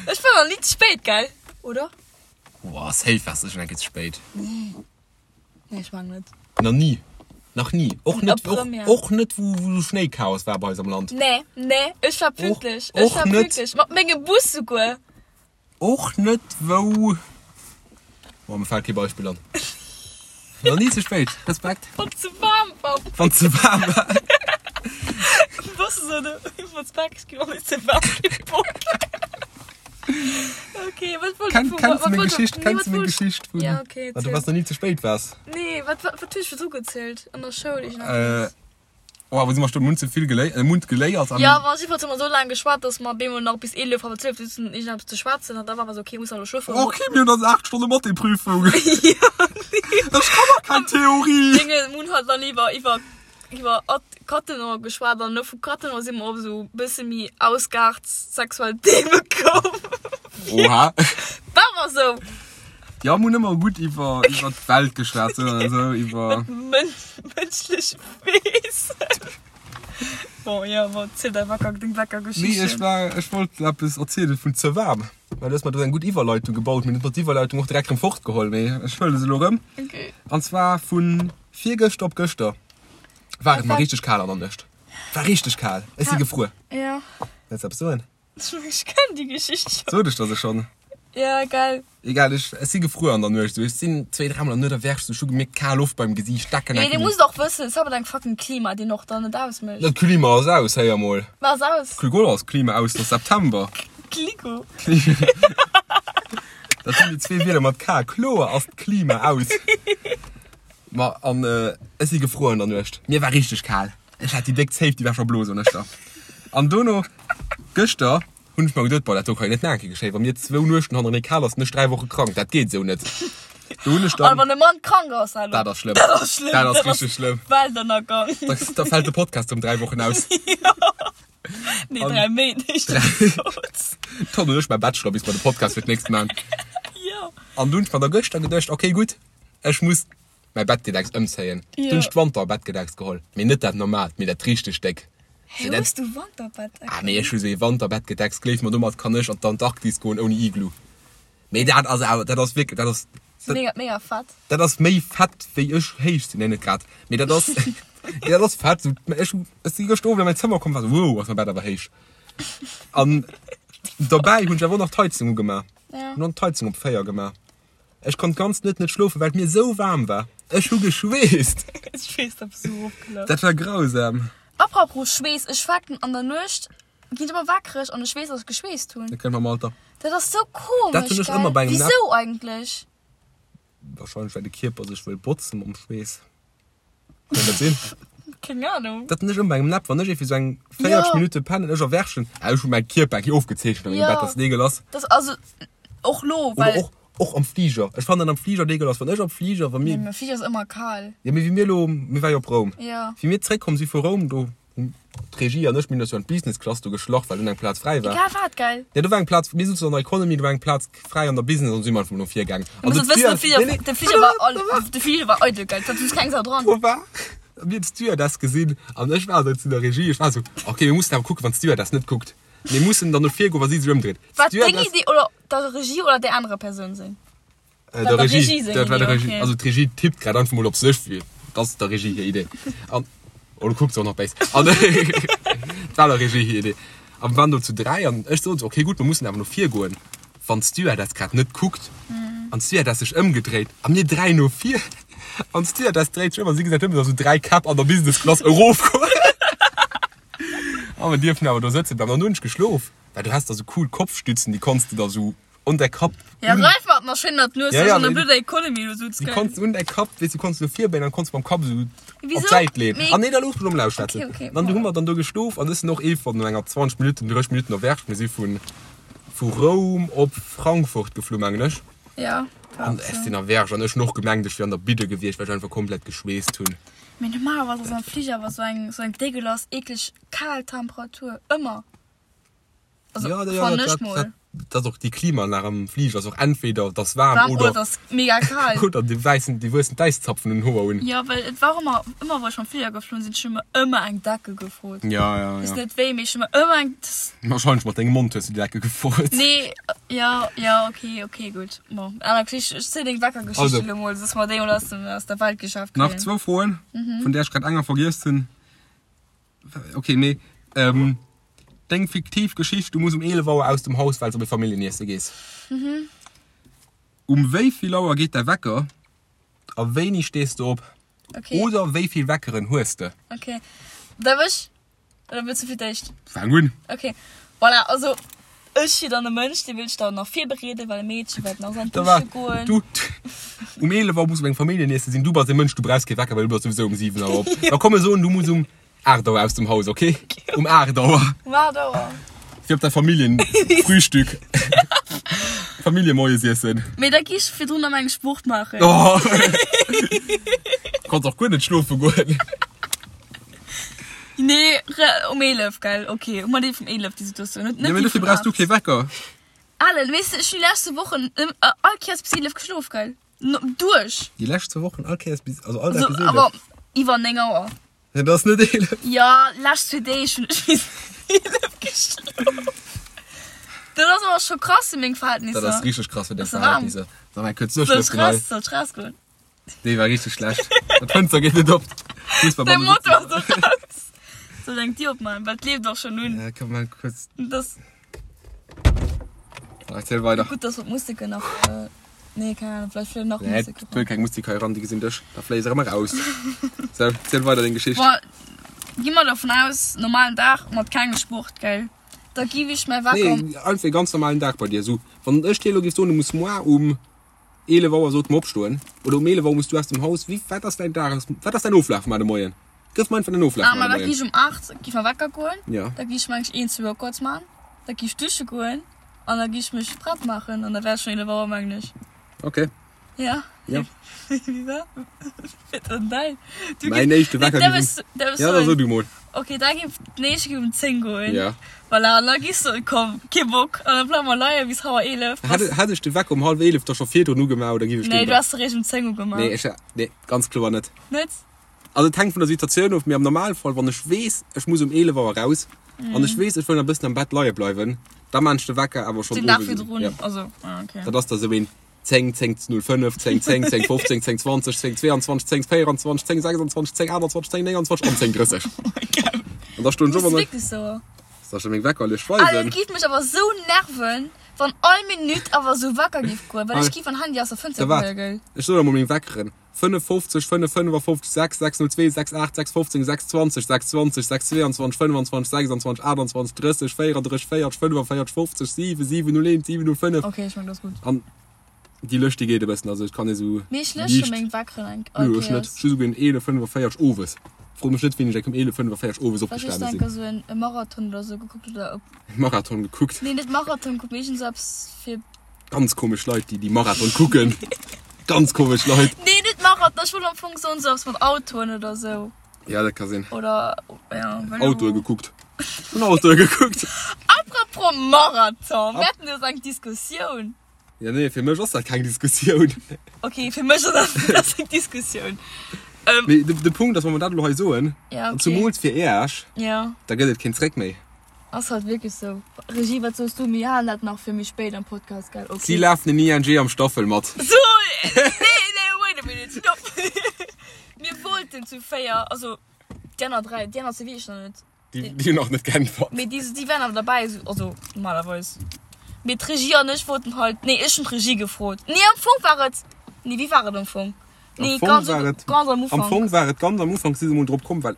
Ech war nach ni ze spéit, gell? Oder? Boah, safe waars du schon eng Kéier ze spéit. Nee. Nee, ech mengen net. Nach ni. Nach ni. Och net, och, Première. och net wou, wou Schnéichaos war bei eis am Land. Nee, nee, ech war pünktlech. Ech och war net. pünktlech. Mat mengem Bus souguer. Och net wou. Boah, mir fält kee Beispill an. Nach ni ze spéit. Respekt. Wann ze waarm war. Wann ze waarm war. Bus esou de iwwer d'Bak ginn, wann et ze waarm ginn. Okay, wat wollt Kenn, du kennst du wat meng wollt du Geschicht? nee, Kennst wat du meng wollt Geschicht vun, Ja, okay, dat du erzähl. was noch nie ze spéit waars? Nee, wat wat wat hues du virdru gezielt an der Schoul Äh, iergendeppes? oh, wou si mer stoen? Mir hunn ze vill geléi äh, Mund geléiert an. Ja, ma jiddefalls hu mer esou laang geschwat, dass mer bemol nach bis 11, halwer 12 sitzen iergendeppes ze schwätzen an da war mer esou, okay, muss elo schlofen. Okay, mir hunn eis 8 Stonne Mathé-Prüfung. Ja, nee. Ech kann nach keng Theorie. Dinge, mir hunn halt dann iwwer iwwer iwwer Cattenom geschwat an no vu Cattenom si mer op esou bësse méi ausgeaart sexuell Theme komm. Oha. War mer esou. Jo, mir hunn ëmmer gutt iwwer iwwer d'Welt geschwat sou an esou iwwer. Mënschlech Wesen. Bon, jo, bon, ziel däi Wecker, deng Weckergeschichten. Nee, ech war, ech wollt eppes erzielen vun ze waarm. Well du hues mer do eng gutt Iwwerleitung gebaut, mee du hues mer d'Iwwerleitung och direkt erëm fortgeholl, mee ech huele se elo erëm. Okay. An zwar vun virgëschter op gëschter. War et mar richteg kal an der Nuecht. War richteg kal. Ech si gefruer. Ja. Wëlls eppes soen? Ech kenn déi Geschicht schon. Sot ech der se schonn? Ja, geil. Egal, ech, ech si gefruer an der Nuecht. Ech sinn zwéi, dräimol an der Nuet erwächt, ech hu gemierkt, kal Loft beim Gesiicht, Decken Mee du muss och wëssen, et ass awer deng fucking Klima, déi och dann net ausmécht. Dat Klima ass aus, héier mol. Wat ass aus? Kligo ass Klima aus, et ass September. Kligo. Dat sinn déi zwee Wierder mat K. Kloer ass d'Klima aus. Ma an ech si gefruer an der Nuecht. Mir war richteg kal. Ech hat déi déck Zéif, déi war scho blo, soen ech der. An dono, gëschter, hunn ech mer geduet, boah, dat do kann jo net nach eng Kéier geschéien, wa mir zwou Nuechten hannerenee kal ass, sinn ech 3 Woche krank, dat geet esou net. Do hunn ech An dann. wann e Mann krank ass, hallo. Dat ass schlëmm. Dat ass schlëmm. Dat ass richteg schlëmm. Weltënnergang. Da, da fält de Podcast ëm 3 Wochen aus. Nee, An 3 Méint, éischter gesot. Dann hunn ech mäi Bachelor, bis mer de Podcast fir d'nächst man. Jo. An du hunn ech mer da gëschter geduecht, okay, gutt, Ech muss mäi Bettgedecks ëmzéien. Du hunn ech d'Wanterbettgedecks geholl. Mee net dat normaalt, mee dat richteg déck. Hä, hues du Wanterbettdecks? Ah, mee ech hu sou ee Wanterbettgedecks, gleef mer, domat kann ech an d'Antarktis goen ouni Iglu. Mee dat ass awer, dat ass wierklech, dat ass. Ass mega, mega fett. Dat ass méi fett wéi ech héich sinn. Nee, net grad, mee dat ass, mee dat ass fett. Sou, ech hu, ech si gëschter Owend an mäin Zëmmer komm, war sou, wow, ass mäi Bett awer héich. An dobäi hunn ech awer och nach d'Heizung ugemaach. Ja. Hunn och d'Heizung op 4 gemaach. Ech konnt ganz net net schlofen, well et mir esou waarm war. Ech hu geschweesst. Ech weess, dat bist du erofgelaf. Dat war grausam. Apropos Schweess, ech waken an der Nuecht, ginn ech ëmmer wakereg an ech weess, dass ech geschweesst hunn. Dat kënnt mam Alter. Dat ass sou komesch, Dat hunn ech ëmmer bei gell? engem Wisou eigentlech? Wahrscheinlech well de Kierper sech wëll botzen mam Schweess. Kann dat sinn? Keng Ahnung. Dat hunn ech ëmmer bei engem Napp, wann ech iergendwéi sou eng 40 Ja. Minutte pennen, ech erwächen, ah ech hu mäi Kierper eng Kéier ofgezeechent an mengem Ja. Bett, dass et eegel ass. Dat also och lo, Oder well. och, och am Fliger. Ech fannen am Fliger et eegel ass, wann ech am Fliger, wa Nee, mir, am Fliger ass ëmmer kal. jo mee wéi mir elo, mir ware jo op Roum, Ja. wéi mir zréckkomm si vu Roum, do. D'Regie an ech, mir hunn eis jo an d'Business Class do geschlach, well dunn eng Plaz fräi war. Egal wat, gell? Jo, do war eng Plaz, mir souzen an der Economy, do war eng Plaz fräi an der Business an du si mer einfach mol no vir gaangen. An de Fliger, nee, nee, de Fliger war all, de Fliger war eidel, gell? Da sutz keng Sau dran. Do war, mir hunn d'Stewardess gesinn an ech war esou zu der Regie, ech war esou, okay, mir mussen awer kucken, wann d'Stewardess net kuckt. Mir mussen dann no vir goen, wa si sech ëmdréit. War deng Idee oder der Regie oder där anerer Persoun seng? Äh, der Regie, Regie dat war der Regie. Okay. Also d'Regie tippt grad einfach mol op sech, wéi dat ass der Regie hir Idee. An oh, du kucks och nach béis. An dat war der Regie hir Idee. A mir waren do zu dräi an ech sot, okay gutt, mir mussen awer no vir goen, wann d'Stewardess grad net kuckt. Mm. An d'Stewardess sech ëmgedréit a mir dräi no vir. An d'Stewardess dréit sech ëm a si gesäit nëmmen, datt esou dräi Käpp an der Business Class erofgoen. A mir dierfen awer do sëtzen bleiwen. An dann hunn ech geschlof, well du has da sou cool Kopfstützen, déi konns de da sou un däi Kapp. Ja, reif mat nach schön dat Nues ja, ja, an der blöder Economy du sutz. Du konns un däi Kapp, weess du konns du virbéien an konns mam Kapp sou op d'Säit leen. Ah nee, da looss mech emol ausschwätzen. Okay, okay. Dann du hu mer dann do geschlof an ech sinn och ee von no enger 20 Minutten, 30 Minutten erwächt. Mir si vun vu Roum op Frankfurt geflu mengen ech. Ja. An ech sinn erwächt an ech hunn och gemengt ech wier an der Bidde gewiescht, well ech einfach komplett geschweesst hunn. Mee normalerweis ass am Fliger awer sou eng sou eng dégueulasse eekleg kal Temperatur ëmmer. Also, ja, ja, dat, dat, dat, dat och déi Klimaanlag am Fliger ass och entweder dass waarm, warm oder, oder dass mega kal. Oder déi wäissen, déi wuessen d'Äiszapfen un den Hoer un. Ja, well et war ëmmer, ëmmer wou ech mam Fliger geflunn sinn, ech hu mer ëmmer eng Decke gefrot. Ja, ja, Weess ja. net wéi, mee ech hu mer ëmmer eng. Wahrscheinlech mat dengem Mond hues du déi Decke gefrot. Nee, ja, ja, okay, okay, gutt. Bon, aner Geschicht, ech ziel deng Weckergeschicht Also. elo mol, soss mer déi mol aus dem, aus der Welt geschaaft Nach kréien. zwou Froen, vun där ech grad enger vergiess hunn. Ok, mee ähm, deng fiktiv Geschicht, du muss um 11 Auer aus dem Haus, well s op e Familljeniessen gees. Mhm. Um wéi vill Auer geet däi Wecker a wéini stees de op? Okay. Oder wéi vill Weckeren hues de? Okay. Darf ech? Oder wëlls du fir d'éischt? Fang un. Okay. Voilà, also ech si dann e Mënsch, dee wëll sech dann nach virbereeden, well e Meedche wäert nach an Da war, d'Dusche goen. du, um 11 Auer muss op engem Familljeniessen sinn, du bass e Mënsch, du brauchs kee Wecker, well du bass souwisou um 7 Auer op. Da komm mir soen, du muss um 8 Auer aus dem Haus, okay? Um 8 Auer. Um 8 Auer. Fir op däi Familljenfrühstück. Familljemoiesiessen. Mee da gi ech virdrun nach eng Sport maachen. Oh. Konns och guer net schlofe goen. Nee, um 11, gell? Okay, hu mer déi vum 11, déi Situatioun. Net, Ja, net mee déi dofir vun brauchs du 8. kee Wecker. Alan, weess de, ech hunn déi lescht zwou Wochen all Kéiers bis 11 geschlof, gell? No, duerch. Déi lescht zwou Wochen all Kéiers bis, also all Dag Also, bis 11? awer iwwer 9 Auer. Ja, dat ass net 11. Ja, lescht zwee Deeg hunn ech bis 11 geschlof. Dat ass awer scho krass fir meng Verhältnisser. Dat ass richteg krass fir deng Ass warm. Verhältnisser. Sag mal, kuerz Soll ech duerchlëften hei. raus, soll ech rausgoen? Déi war richteg schlecht. Dat Fënster geet net op. De Motor ass och raus. Soll ech eng Dier opmaachen? Well et leeft och schonn un. Ja, komm mal kurz. Das. Erziel weider. Gutt, dass wir d'Museke nach. Äh, nee, keine Ahnung, vielleicht fliegen nach Nee, Museke. et wëll keng Musek hei eran, déi gesinn dech. Da fléie se erëm eraus. Sou, ziel weider deng Geschicht. Boah, gi mer dovun aus, normalen Dag mat kengem Sport, gell? Da giff ech mäi Wecker. Nee, einfach e ganz normalen Dag bei dir. Sou, wann ech dir elo géif soen, du muss moar um 11 Auer sollt mer opstoen oder um 11 Auer muss du aus dem Haus. Wéi, wat ass däin Dag, wat ass däin Oflaf mar de Moien? Gëff mer einfach den Oflaf Ah, mar ma de da gi Moien. ech um 8 gi mer Wecker goen. Ja. Da gi ech meng ech een, zwou Workouts man. Da gi ech dusche goen an da gi ech mech prett maachen an da wär et schonn 11 Auer mengen ech. Okay. Ja. Ja. Wéi war wat dann däin? Du Mäin ginn- éischte Wecker Nee, gi därf ech- därf ech Ja, da soen? so du mol. Okay, da gi den éischte gi um 10 goen. Ja. Voilà, an da gis du, komm, kee Bock. An da bleiwe mer leie bis hauer 11. Hätt, hätt ech de Wecker um hallwer 11 da scho virdrun ugemaach oder giff ech Nee, den du has de réischt um 10 ugemaach. Nee, ech, nee, ganz kloer net. Net? Also et hänkt vun der Situatioun of, mee am Normalfall, wann ech weess, ech muss um 11 Auer raus an ech weess, ech wëll nach e bëssen am Bett leie bleiwen, da maan ech de Wecker awer schonn Den Dag owes un. virdrun, Ja. also, ah, okay. Dat ass da sou een 10, 10 05, 10 10, 10 15, 10 20, 10 22, 10 24, 10 26, 10 28, 10 29 an 10 30. An da stoen ech Ass op an da wierklech sou? soll ech der meng Weckerlech Ah, dat weisen. giff mech awer sou nerven, wann all Minutt awer sou Wecker giff goen, well ech Hei. giff an Handy aus der Fënster Da waart, geheie, gell? ech soen der mol meng Weckeren, 55, 5, 55, 6, 6, 02, 6, 8, 6, 15, 6, 20, 6, 20, 6, 22, 25, 26, 28, 30, 34, 40, 45, 50, 7, 7, 01, 7, 05. Okay, ech meng, dat ass gutt. An déi Lëscht, déi geet e bëssen, also et kann ee sou Mee ech läsche liicht. meng Weckeren eng Nö, ech net. Ech hu souguer en 11,45 owes. Fro mech net, wéini ech eng um 11,45 owes Well ech opgestane denke sinn. sou en e Marathon oder sou gekuckt oder op. Marathon gekuckt. Nee, net Marathon gekuckt, mee iergend sou eppes fir. Ganz komesch Leit, déi déi Marathon kucken. Ganz komesch Leit. Nee, net Marathon, ech wollt am Fong soen sou eppes mat Autoen oder sou. Ja, dat ka sinn. Oder, ja, well Autoe gekuckt. Hunn Autoe gekuckt. Apropos Marathon, mir haten jo eng Diskussioun. Ja, nee, fir mech ass dat keng Diskussioun. Okay, fir mech ass dat eng Diskussioun. Ähm, Mee de, de Punkt ass, wa mer dat elo hei soen, ja, okay. zumools fir Iech, ja. da gëtt et keen Zréck méi. Ass halt wierklech sou. Regie, wat soos du? Mir halen dat nach fir méi spéit am Podcast, gell? Okay. Si lafen den ING am Staffel mat. So, nee, nee, wait a minute, stopp. Mir wollten zu 4, also déi aner 3, déi aner zwee weess ech nach net. Déi, déi hunn nach net geäntwert. Mee déi, déi wären awer derbäi, also normalerweis. Mee d'Regie an ech wollten halt, nee, ech hunn d'Regie gefrot. Nee, am Fong war et, nee, wéi war et am Fong? Nee, Am Fong ganz, war et, ganz am am Ufank. Fong war et ganz am Ufank, si se mol drop komm, well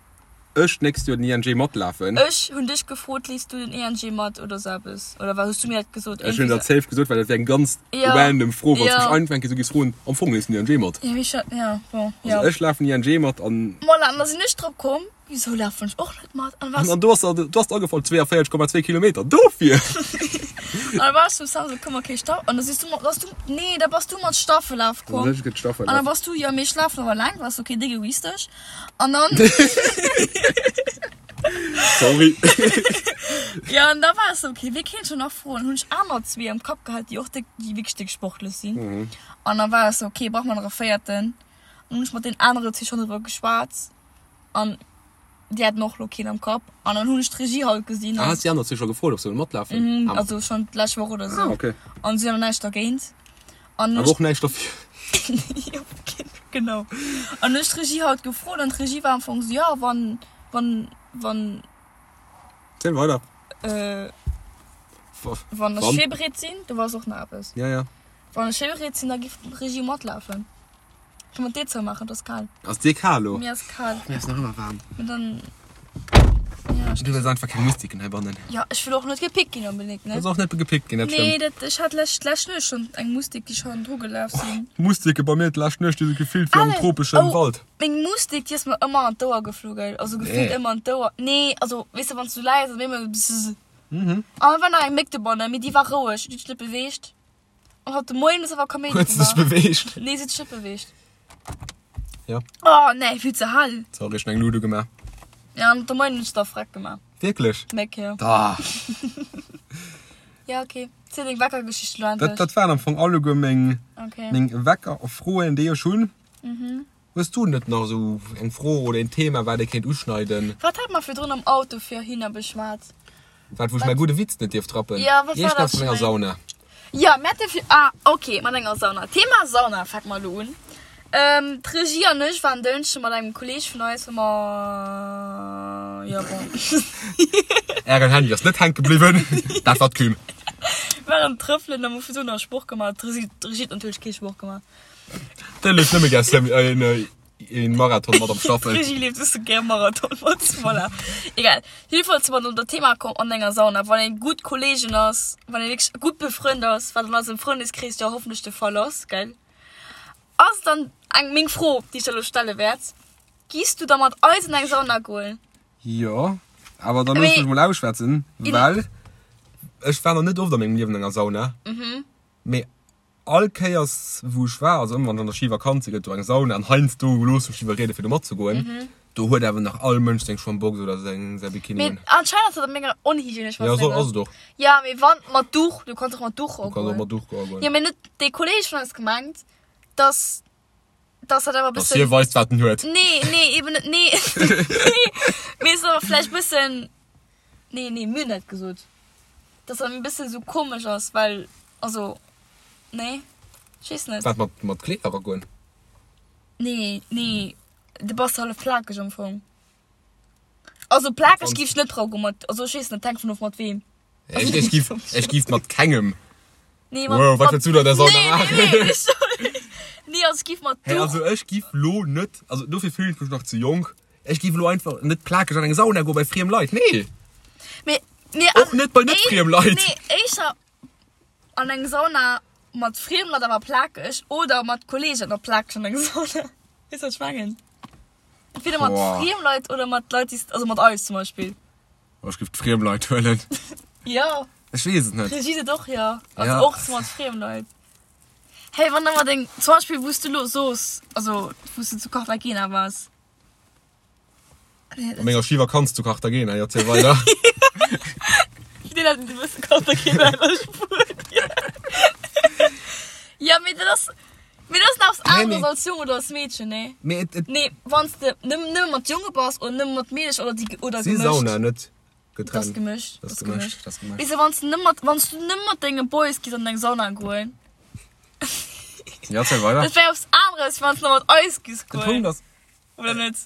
ech d'nächst Joer den ING matlafen. Ech hunn dech gefrot, leefs du den ENG mat oder sou eppes? Oder wat hues du mir dat gesot? Ech hunn dat safe gesot, well dat wär eng ganz Ja. random Fro, wann s Ja. mech einfach eng Kéier sou giffs froen, am Fong leefs du den ING mat? Ja, wéi scho, ja, bon, ja. Also ech lafen ING mat an. Voilà, an da sinn ech drop komm, Wisou lafen ech och net mat? An was? An do ass der, do ass der agefall 42,2 Kilometer. Dofir! An da war ech zum Sam sou, komm okay, Staff. An da siehst du, bass du, nee, da bass du mat Staffellaf komm. Ech gëtt Staffellaf. An da bass du, ja, mee ech lafen awer laang, war so, okay, déck egoistesch. An dann. Sorry. Ja, an da war ech sou, okay, wie kéint scho nach froen? Hunn ech aner zwee am Kapp gehat, déi och déck, déi wierklech déck sportlech sinn. An da war ech sou, okay, brauche mer nach e véierten. An hunn ech mat deenen anere zwee schonn driwwer geschwat. An déi haten och lo keen am Kapp. An dann hunn ech d'Regie halt gesinn. Ah, has déi aner zwee scho gefrot, ob se wëlle matlafen? Mhm, also schonn d'lescht Woch oder sou. Ah, okay. An si hunn awer näischt dergéint. An Awer och näischt derfir. Jo, genau. An hunn ech d'Regie halt gefrot an d'Regie war am Fong sou, jo, wann, wann, wann. Ziel weider. Äh, wann ech virbereet sinn, do war och nach eppes. Ja, ja. Wann ech virbereet sinn, da giff d'Regie matlafen. Kann man d'Dier zoumaachen, et ass kal. Ass dir kal lo? Mir ass kal. Mir ass nach ëmmer waarm. Mee dann, ja. Du wëlls einfach keng Mustiken heibannen. Ja, ech wëll och net gepickt ginn onbedéngt, ne? Wëlls och net gepickt ginn, dat Nee, stëmmt. dat, ech hat lescht, lescht Nuecht schonn eng Mustik, déi schonn dru gelaf sinn. Mustike bei mir d'lescht Nuecht, déi si gefillt wéi am Alex, tropeschen oh, Wald. Meng Mustik, déi ass mer ëmmer an d'Ouer geflu, gell? Also gefillt Nee. ëmmer an d'Ouer. Nee, also, weess de, wann s du läis, ass et ëmmer bzzz. An da war nach eng Méck dobannen, mee déi war roueg, déi huet sech net beweegt. An haut de Moien ass awer Kaméidi Huet se sech gemaach. beweegt? Nee, se huet sech net beweegt. Ja. Oh nee, vill ze hell. Sorry, ech hun eng Luut ugemaach. Ja, an de Moien hunn ech da freck gemaach. Wierklech? Méck, jo. Da. Ja, okay. Ziel deng Weckergeschicht elo endlech. Dat, dat waren am Fong alleguer meng, Okay. meng Weckerfroen, déi ech hunn. Hues du net nach esou eng Fro oder een Thema, wat ee kéint uschneiden? Wat hat mer virdrun am Auto virhinner beschwat? Wat, wou ech mäi gudde Witz net dierf trappen? Ja, wat war dat Iergendwas mat enger schon Sauna. Ja, mir hate vir, ah, ok, mat enger Sauna. Thema Sauna, fänke mer elo un. D'Regie an ech waren Dënschde mat engem Kolleeg vun eis, wou mer, jo, bon. Ären Handy ass net hänke bliwwen, dat war d'Küm. Waren trëffelen a hu virdrun nach Sport gemaach. D'Regie huet natierlech kee Sport gemaach. Déi leeft nëmme gär Semi, äh, een, een Marathon mat am Staffel. D'Regie leeft just gär Marathon mat, voilà. Egal. Jedenfalls si mer op dat Thema komm an enger Sauna, wann een gutt Kollegen ass, wann een wierklech gutt befrënnt ass, wat an eisem Frëndeskrees jo hoffentlech de Fall ass, gell? Ass dann eng meng Fro, déi ech der elo stelle wäert, Giss du da mat eis an eng Sauna goen? Jo, awer da looss mech mol ausschwätzen, well ech war nach net oft a mengem Liewen an enger Sauna. Mee All Kéiers wou ech war, also ëmmer wann ech an der Schivakanz sinn, gëtt do eng Sauna an heiansdo loosse ech mech iwwerrieden fir do matzegoen. Do huet awer nach all Mënsch seng Schwammbox oder seng säi Bikini Mee un. anscheinend ass dat op menger onhygienesch Ja, so ass et och. Ja, mee wann mat Duch, du kanns och mat Duch Du kanns och mat Duch goen. Ja, mee net dee Kolleeg vun eis gemengt, dass dass dat awer e Dass bëssen hie weist wat en huet. Nee, nee, eben net, nee. Nee, mee ass awer vläicht bëssen Nee, nee, mir hunn dat gesot. Dass dat e bëssen esou komesch ass, well, also, nee, ech weess net. Wat, mat, mat Kleeder eragoen? Nee, nee, du bass hallef plakeg am Fong. Also plakeg giff ech net dra goen mat, also ech weess net, hänkt vun of mat weem. Ech, ech giff, ech giff mat kengem. Nee, mat, Wow, wat wëlls du da der Sauna nee, maachen? Nee, nee, nee, nee, also ech giff mat Hey, Duch. also ech giff lo net, also dofir fillen ech mech nach ze jonk, ech giff lo einfach net plakeg an eng Sauna goen bei friem Leit, nee! Mee, nee, Och net bei net friem Leit. Nee, éischer an eng Sauna mat friem Leit awer plakeg oder mat Kollegen a plakeg an eng Sauna. Weess wat ech mengen? Entweder mat Boah. friem Leit oder mat Leit, déi s, also mat eis zum Beispill. Oh, ech giff d'friem Leit huelen. Jo. Ech weess et net. D'Regie seet och jo. Also Ja. och mat friem Leit. Hey, wann da mat eng, zum Beispill wou s du lo soos, also wou s du zu Cartagena waars. Op menger Schivakanz zu Cartagena, jo, ziel weider. Deen hat e bësse Cartagena an Spuenien. Ja, mee dat ass, mee dat ass nach eppes aneres als Jong oder als Meedchen, nee? Mee et, et. Nee, wann s de nëmmen, nëmme mat Jonge bass oder nëmme mat Meedecher oder déi, oder Si gemëscht. Sauna net Dat ass getrennt. gemëscht, Dat dat ass ass gemëscht, gemëscht. dat ass gemëscht. Weess de, wann s de nëmme mat, wann s du nëmme mat denge Boys giss an eng Sauna goen. Ja, ziel weider. Dat wär eppes aneres, wéi wann s de mat eis giss De goen. Punkt ass. Oder net?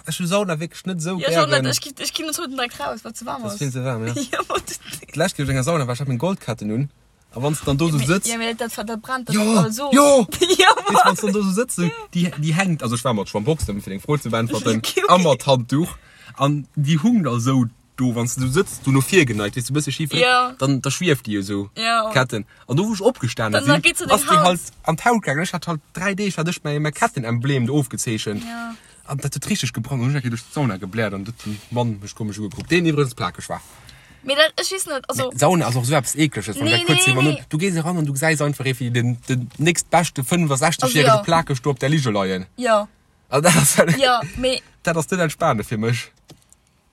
Ech hu Sauna wierklech net esou Ja, ech och net. gären. Ech ginn, ech ginn net haut direkt raus, well et ze waarm Dat ass. ass vill ze waarm, ja. Ja, ma du. D'lescht Kéier, wou ech an enger Sauna war, ech hat meng Goldketten un. A wann s de dann do esou sëtz. Ja, mee dat, dat brennt dann Jo, all so. jo! Ja, Weess, wann s de dann do esou sëtz, esou, déi, déi hänkt, also ech war mat Schwammboxen, fir deng Fro ze beäntwerten, a mat Handduch. An déi hung da esou do, wann s de esou sëtz, du no vir geneigt, weess du, e bësse schif, Ja. dann, da schwieft déi esou, Ja. d'Ketten. An do wou ech opgestane Dann- dann sinn, geet se deng ass déi Haut. halt an d'Haut gaangen. Ech hat halt 3 Deeg hat ech mäi, mäi Kettenemblem do ofgezeechent. Ja. An dat huet richteg gebrannt. An hunn ech eng Kéier duerch d'Sauna gebläert an huet den Mann mech komesch ugekuckt, deen iwwregens plakeg war. Mee dat, ech weess net, also. Mee Sauna ass och esou eppes Eekleges, wann Nee, dat kuerz nee, iwwerno. nee. Du gees eran an du gesäis einfach ee wéi den, den nächstbeschte 65 Also järege jo. plakeg do op der Lige leien. Jo. Also dat ass, Jo, mee. dat ass net entspanend fir mech.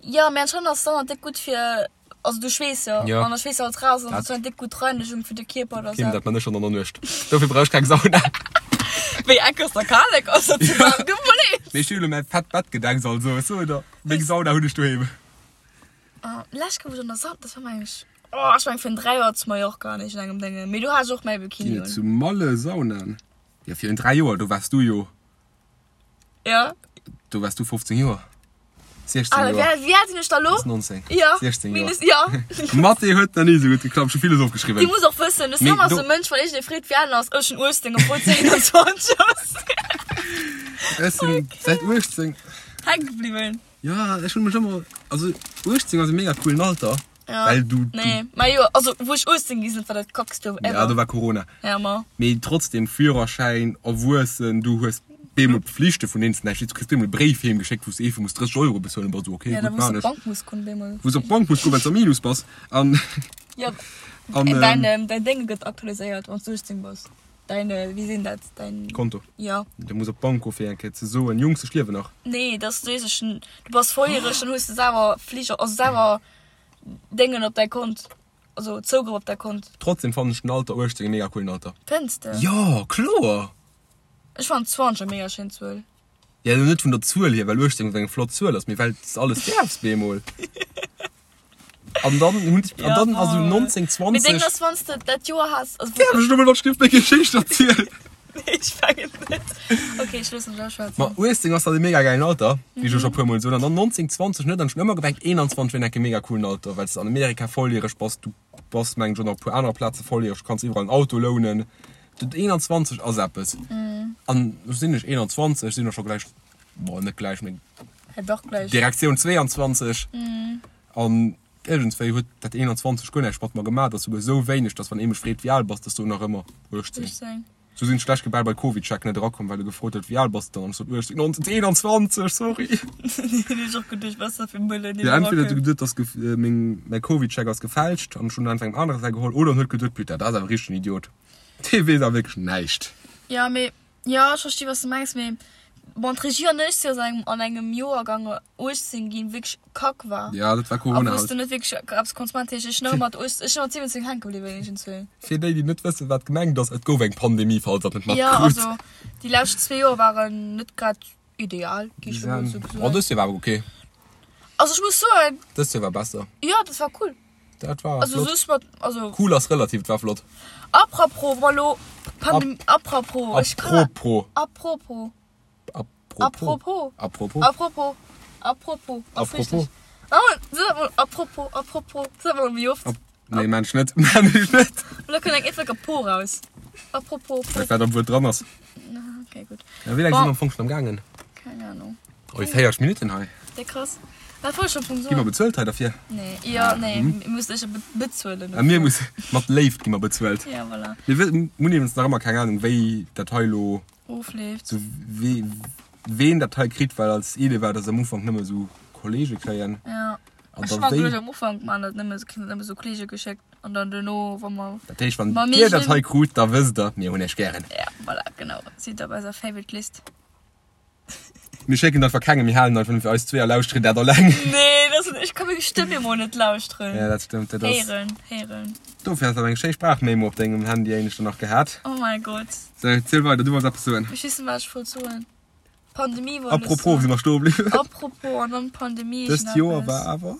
Jo, mee anscheinend ass Sauna déck gutt fir, also du schweess jo, Ja. an da schweess alles raus an Dat- dat ass eng déck gutt Reinigung fir de Kierper oder Kim, sou. dat man ech schon an der Nuecht. Dofir brauch ech keng Sauna. Wéi enk ass der Kalek ass dat ze waarm gebliwwen? Mee ech hunn elo mäi fett Bett gedeckt, also ech soen der, meng Sauna hunn ech doheem. Ah, lescht Kéier wou ech an der Sauna, dat war meng ech, oh ech meng virun 3 Joer zu Mallorca an iergendengem Déngen, mee do hat ech och mäi Bikini Ginn et un. zu Malle Saunaen? Jo, virun 3 Joer, do waars du jo. Ja. Do waars du 15 Joer. 16 Ah, Joer. wéi, wéi al sinn ech da lo? Ass 19. Ja. 16 Joer. Minus, ja. Mathé huet nach ni esou gutt geklappt. Ech hu villes ofgeschriwwen. Dir musst och wëssen, de Mee Sam ass do- e Mënsch, wann iergendee freet, wéi al en ass, ech hunn 18, obwuel s 21 ass. Ech sinn säit 18. Hänke bliwwen. Ja, ech hunn mech ëmmer, also 18 ass e mega coolen Alter. Ja. Well du, du Nee, ma jo, also wou ech 18 gi sinn, war dat kackst Joer ever. Ja, do war Corona. Ja, ma. Mee trotzdem, Führerschäin, erwuessen, du hues bemol Pflichte vun deenen s de näischt weess. Du kriss bemol e Bréif heem geschéckt, wou s de eefel muss 30 Euro bezuelen. Bass du okay, Ja, da gutt, wou s maan op ech. d'Bank muss goen, bemol. Wou s op d'Bank muss goen, well s am Minus bass. An, Ja, an, däin, ähm, ähm, däin Dénge gëtt aktualiséiert, wann s du 18 bass. Däin, äh, wéi sinn dat, däin. Konto. Ja. Du muss op d'Bank goen, fir eng Kéier ze soen, Jungs, ech liewen nach. Nee, dass du weess, du bass volljäreg, dann hues de selwer Fliger, also selwer Déngen op däi Kont, also Zougrëff op däi Kont. Trotzdem fannen ech den Alter 18 e mega coolen Alter. Fënns de? Jo, kloer! Ech fannen 20 eng mega schéin Zuel. Ja, lo net vun der Zuel hier, well 18 eng flott Zuel ass, mee well s de alles däerfs bemol. An dann hunn ech, an dann ass esou 19, 20. Mee deng ass wann s de dat Joer has, also. Däerf ech elo mol wat Stift meng Geschicht erzielen? Nee, ech mengen net. Ok, ech loossen dech ausschwätzen. Ma 18 ass dann e mega gäilen Alter, wéi ech jo scho puer mol soen. An dann 19, 20 net. An ech hunn ëmmer gemengt 21 wier enk e mega coolen Alter, well s de an Amerika volljäreg bass, du bass mengen ech och nach op e puer anere Plaze volljäreg, du kanns iwwerall en Auto lounen. Dat 21 ass eppes. An lo sinn ech 21, sinn och scho gläich, bon net gläich, mee Hä, dach gläich. Direktioun 22. An iergendswéi huet dat 21 guer näischt mat mer gemaach. Dat ass souguer esou wéineg, dass wann ee mech freet wéi al bass, dass do nach ëmmer 18. 18. Sou sinn ech d'lescht Kéier bal bei CovidCheck net erakomm, well e gefrot huet wéi al bass de dann, an ech sot 18, 19, 21, sorry. Hunn ech och geduecht, wat ass dat fir e Mëllen, deen Jo, entweder huet e erakënnt. geduet, dass gef meng mäi CovidCheck ass gefälscht an ech hunn einfach engem anere säi geholl, oder en huet geduet, putain, dat ass awer richteg en Idiot, dee weess awer wierklech näischt. Jo, mee Jo, ech versti wat s de mengs, mee bon d'Regie an ech si aus engem an engem Joergang 18 ginn, wierklech kack war. Ja, dat war A Corona wou s de halt. net wierklech eppes konns maachen. Dat heescht, ech sinn nach ëmmer mat 18, ech sinn mat 17 hänke bliwwen iergendzwou. Fir déi, déi net wëssen, wat gemengt ass, et gouf eng Pandemie, falls der et net Jo, matkritt. also déi lescht zwee Joer waren net grad ideal, gi ech emol esou Oh, soen. dëst Joer war awer ok. Also ech muss soen. Dëst Joer war besser. Jo, dat war cool. Dat war Also flott. soss mat, also. Cool ass relativ, et war flott. Apropos, wa lo Pandem, apropos, ech kann. Apropos. Apropos. Apropos. Apropos. Apropos. Apropos. Apropos. Ass Apropos. richtig. Oh, sot mol apropos, apropos, sot mol méi oft. Ap nee, maan ech net, maan ech net. Lo kënnt eng eefege Po raus. Apropos, Well wat am Wuert dran ass. Okay, gutt. Ja, wéi laang si mer am Fong schon am gaangen? Keng Ahnung. Oi, 40 Minutten hei. Déi krass. Wat wollt ech am Fong Gi mer soen? bezuelt hei derfir? Nee, jo, nee, mir mussen ech be bezuelen. A mir musse, mat Léift gi mer bezuelt. Ja, voilà. Mir wë hunn iwwregens nach ëmmer keng Ahnung, wéi dat hei elo, Ofleeft. sou wee ween dat hei kritt, well als Idee war, dass am Ufank nëmme sou Kollege kréien. Ja. An Ech da war wéi. geduecht, am Ufank man dat nëmme, kritt dat nëmme sou Kollege geschéckt an dann duerno, wa mer. Dat heescht, wann Wa mir dir dat sinn- hei krut, da wësst der, mir hunn iech gären. Ja, voilà, genau. Sidd op eiser Favorite List. Mir schécken dat einfach kengem, mir halen einfach fir eis zwee a lauschteren dat alleng. Nee, dat ass, ech ka meng Stëmm emol net lauschteren. Ja, dat stëmmt, dat ass. Héieren, héieren. Dofir has de awer eng schéi Sprachmemo op dengem Handy éineschter nach gehat. Oh mäi Gott. Sou, ziel weider, du wollts eppes soen. Ech weess net, wat ech wollt soen. Pandemie wollt ech Apropos, wou soen. si mer stoe bliwwen? Apropos an dann Pandemie. Dëst Joer war awer.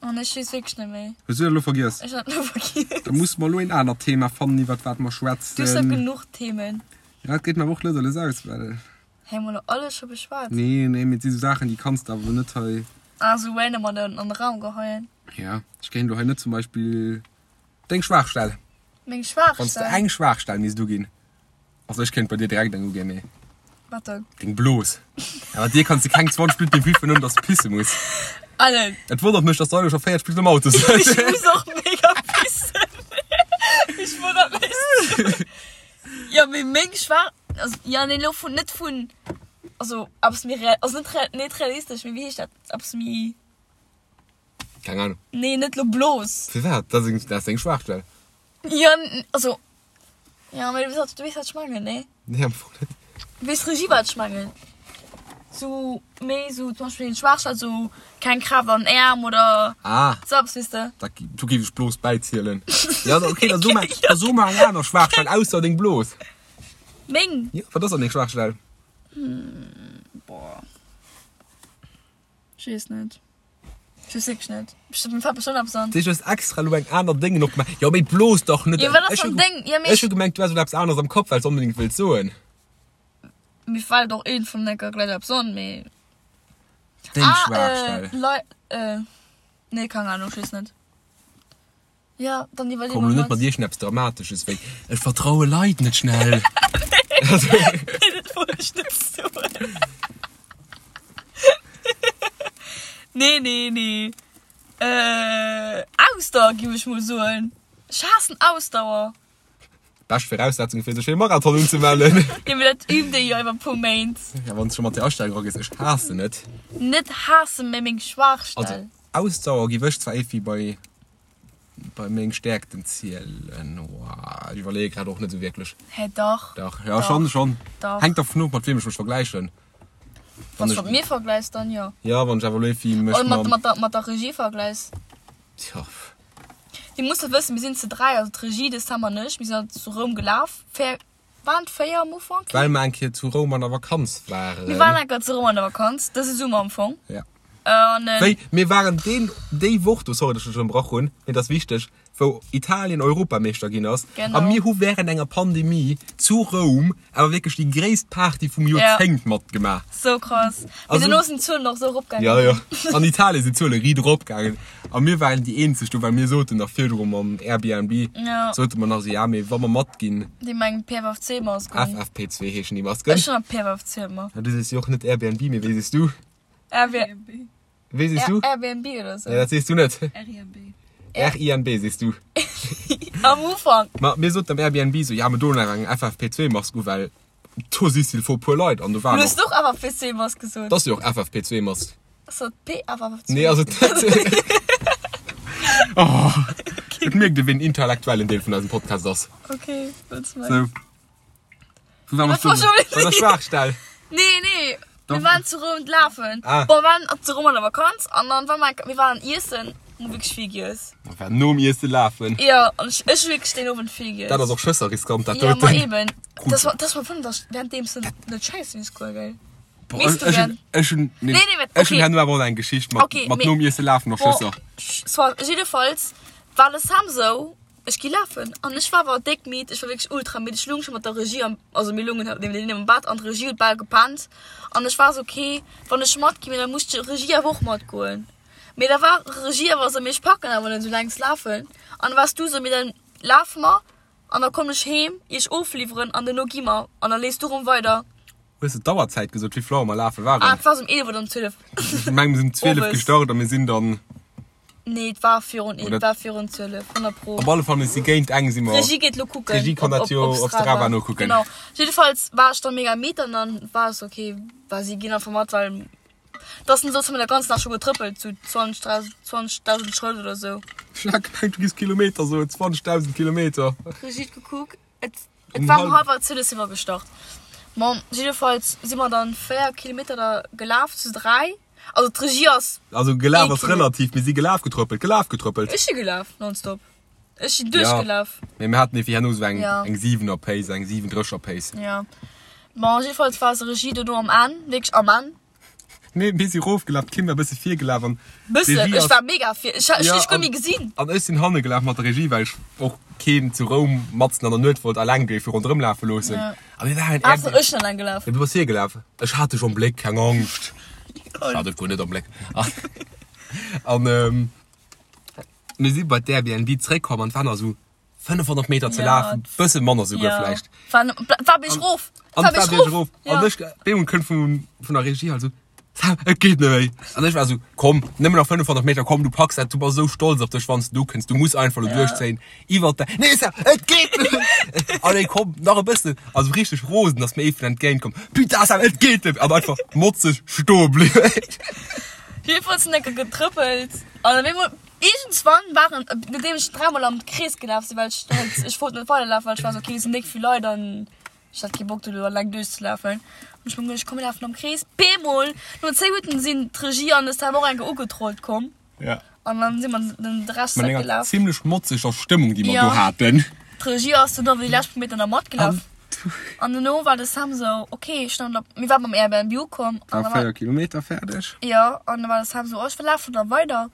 Oh nee, ech weess wierklech net méi. Hues du dat elo vergiess? Ech hat elo vergiess. Da musse mer elo een anert Thema fannen, iwwert wat mer schwätzen. Du hues jo genuch Themen. Ja, et geet mer awer och lues a lues aus, well. Hei hu mer elo alles scho beschwat. Nee, nee, mee et si sou Saachen, déi kanns de awer elo net hei. Ah, sou random an den, an de Raum geheien. Ja, ech kéint elo hei net zum Beispill deng Schwaachstell. Meng Schwaachstell? Wann s de eng Schwaachstell misst uginn. Also ech kéint bei dir direkt eng uginn, mee. Wat dann? Deng Blos. Ja, mat dir kanns de keng 20 Minutten wiffen, ouni dass de pisse muss. Allen. Et wonnert mech, dass de elo scho 40 Minutten am Auto sëtz. Ech muss och mega pissen. Ech wonnert mech. Jo, mee meng Schwaach, also ja, nee, elo vun, net vun, also eppes méi real, also net real, net realistesch, mee wéi heescht dat, eppes méi. Keng Ahnung. Nee, net elo Blos. Firwat? Dat ass, dat ass deng Schwaachstell. Jo, also, jo, mee du weess, du weess wat ech mengen, nee? Nee, am Fong net. Weess d'Regie wat ech mengen? Sou méi sou zum Beispill Schwaachstell, sou keng Kraaft an den Äerm oder Ah. sou eppes, weess de? Da, do géif ech Blos bäizielen. Ja, okay, da so mer, da so mer eng aner Schwaachstell ausser deng Blos. Meng? Jo, wat ass dann deng Schwaachstell? Boah. Ech weess net. Ech weess wierklech net. Ech mir fält bestëmmt eppes an. Du hues extra elo eng aner Déngen opgemaach. Jo, mee blos dach net. Jo, wat ass dann deng? Jo, mee Ech hu gemengt, du häss elo eppes aneres am Kopf, well s de onbedéngt wëlls soen. Mir fält och een vun enker gläich eppes an, mee. Deng Ah, Schwaachstell. äh, Lei, äh, nee, keng Ahnung, ech weess net. Ja, dann iwwerlee Komm mer elo net mat. mat iergendeppes Dramatesches wéi, Ech vertraue Leit net schnell. Nee, dat wollt ech net soen. Nee, nee, nee. Äh, Ausdauer, giff ech mol soen. Ech haassen Ausdauer. Bescht Viraussetzung fir sech fir e Marathon unzemellen. Jo, mee dat übt ee jo iwwer e puer Méint. Ja, wann s scho mat där Astellung eragees, ech haassen et. Net haassen, mee meng Schwaachstell. Also Ausdauer giff ech zwar éiwéi bei bei meng Stäerkten zielen. Oah, ech iwwerleeë grad och net esou wierklech. Hä, dach. Dach, ja schonn, schonn. Dach. Hänkt dervun of, mat weem ech mech vergläichen. Wann s du mat mir vergläichs, dann jo. Ja, wann ech awer elo éiwéi mech Oder mat, mam. mat der, mat der Regie vergläichs. Tja. Dir musst dat wëssen, mir sinn ze 3, also d'Regie, de Sam an ech, mir sinn halt zu Roum gelaf, véier, waren et 4 am Ufank? Well mer eng Kéier zu Roum an der Vakanz waren. Mir waren eng Kéier zu Roum an der Vakanz, dëse Summer am Fong. Ja. An, Wéi, mir waren deen, déi Woch do, sorry, dass ech dech ënnerbrach hunn, mee et ass wichteg, wou Italien Europameeschter ginn ass. Genau. A mir hu während enger Pandemie zu Roum awer wierklech déi gréisst Party vum Joerzéngt matgemaach. Sou krass. Mee Also- dono sinn d'Zuelen och sou eropgaangen. Ja, ja. An Italien sinn d'Zuele riit eropgaangen. A mir waren déi eenzeg do, well mir soten nach virdru mam Airbnb, Ja. sote mer nach esou, ja, mee wa mer matginn, Déi mengen PFFC-Masken. FFP2 heeschen déi Masken. Ech hunn PFFC ëmmer. Ja, du sees jo och net Airbnb, mee wéi sees du? Airbnb. Wéi sees du? Airbnb oder sou. Nee, dat sees du net. RINB. RINB sees du. Am Ufank. Ma mir soten am Airbnb sou, ja, mir doen nach eng FFP2-Mask u, well do si s'il faut puer Leit an do Du waren hues och. och FFP2-Mask gesot. Dat ass jo och FFP2-Mask. Ass dat PFFP2? Nee, ass et net. Oh, et mierkt ee, ween intellektuellen Deel vun eisem Podcast ass. Okay, wëlls du meng? Sou. Wou waren mer Wat war stoen? schon Bei der Schwaachstell. Nee, nee. Doch. Mir waren zu Roum lafen. Ah. Bon, mir waren zu Roum an der Vakanz an dann war mer, mir waren iessen, hu wierklech vill giess. Mir waren nom Iesse lafen. Ja, an ech, ech hu wierklech deen Owend vill giess. Dat ass och schësser riskant, dat Ja, ma doten. eben. Das war, das war vun, dass währenddeems du net scheissen misst goen, gell? Boah, Misst du ech, ech gern. hun, ech hun, nee, Nee, nee, wat- ech hun okay. herno awer och nach eng Geschicht mat, Okay, mat mee- nom Iesse lafen och Bon, Schësser. soit, jiddefalls war de Sam sou, Ech gi lafen an ech war awer déck midd, ech war wierklech ultra midd. Ech lung scho mat der Regie am, also mir lungen halt niewendeen am Bett an d'Regie huet bal gepennt an ech war sou, ok, wann ech matgi mee da muss d'Regie awer och matgoen. Mee da war Regie awer sou, mee ech packen awer net sou längst lafen an da waars du sou, mee dann lafe mer an da kommen ech heem iech ofliwweren an duerno gi mer an da leefs du rëm weider. Hues de d'Auerzäit gesot, wéi vill Auer mer lafe waren? Ah, et war sou um 11 oder um 12. Ech meng mir sinn um 12 Owes. gestart a mir sinn dann. Nee, et war virun, Oder- et war virun 12, 100 pro. Op alle Fall, mir si géint eng si mer. D'Regie geet lo kucken. D'Regie kann dat jo op Strava nokucken. Genau. Jiddefalls war ech dann mega midd an dann war es okay, well si ginn einfach mat, well dass den soss hu mir der ganzen Dag scho getrëppelt, sou 20, 30, 20.000 Schrëtt oder sou. Ech hat gemengt, du giss Kilometer soen, 20.000 Kilometer. D'Regie huet gekuckt, et, et Um war um halb- hallwer 12 si mer gestart. Bon, jiddefalls si mer dann 4 Kilometer da gelaf zu 3. Also d'Regie ass. Also gelaf ass relativ, mir si gelaf, getrëppelt, gelaf, getrëppelt. Ech si gelaf, nonstop. Ech sinn duerchgelaf. Ja, mee mir haten ewéi herno esou eng, eng 7er Pace, eng 37er Pace. Ja. Bon, jiddefalls war eis Regie dono am Enn, wierklech am Enn. Nee, mir si rofgelaf, d'Kim war e bësse virgelaf an Bëssen? Ech war mega vir, ech hunn dech guer méi gesinn. An ech sinn hanne gelaf mat der Regie, well ech och keen zu Roum matzen an der Nuet wollt alleng géife ronderëm lafe loossen. A mir waren Ass ech sinn alleng gelaf. Jo, du bass virgelaf. Ech hat dech am Bléck, keng Angscht. Ech hat dech guer net am Bléck. An mir si bei d'Airbnb zréckkomm an et waren nach esou 500 Meter ze lafen, bësse manner souguer vläicht. War, war bierg rof. An war bierg rof. An ech, bemol kënnt vun, vun der Regie halt esou, Sam, et geet net méi. An ech war esou, komm, nëmmen nach 500 Meter, komm, du packs dat, du bass esou stolz op dech, wann s du do kënns, du muss einfach elo duerchzéien, iwwert de, nee Sam, et geet net méi. Allez, komm, nach e bëssen. Also richteg rosen, ass mir eeben entgéint komm, putain Sam, et geet net méi. An einfach motzeg stoe bliwwen. Jedenfalls sinn enke getrëppelt an op eemol Iergendswann waren, nodeem ech dräimol am Krees gelaf sinn, well ech halt, ech wollt net weiderlafen, well ech war sou, okay, et sinn déck vill Leit an ech hat kee Bock do eleng duerchzelafen. Hunn ech mer geduecht, komm mir lafen am Krees. Bemol, no 10 Minutten sinn d'Regie an de Sam och eng Kéier ugetrollt komm. Ja. An dann si mer den de Rescht Mat enger zeréckgelaf. zimmlech motzeger Stëmmung, déi mer Ja. do haten. D'Regie ass dunn awer déi lescht puer Meter nach matgelaf. An dono war de Sam sou, okay, ech stand op, mir waren beim Airbnb ukomm. War 4 Kilometer fäerdeg. Jo, an da war de Sam sou, oh, ech lafen da weider.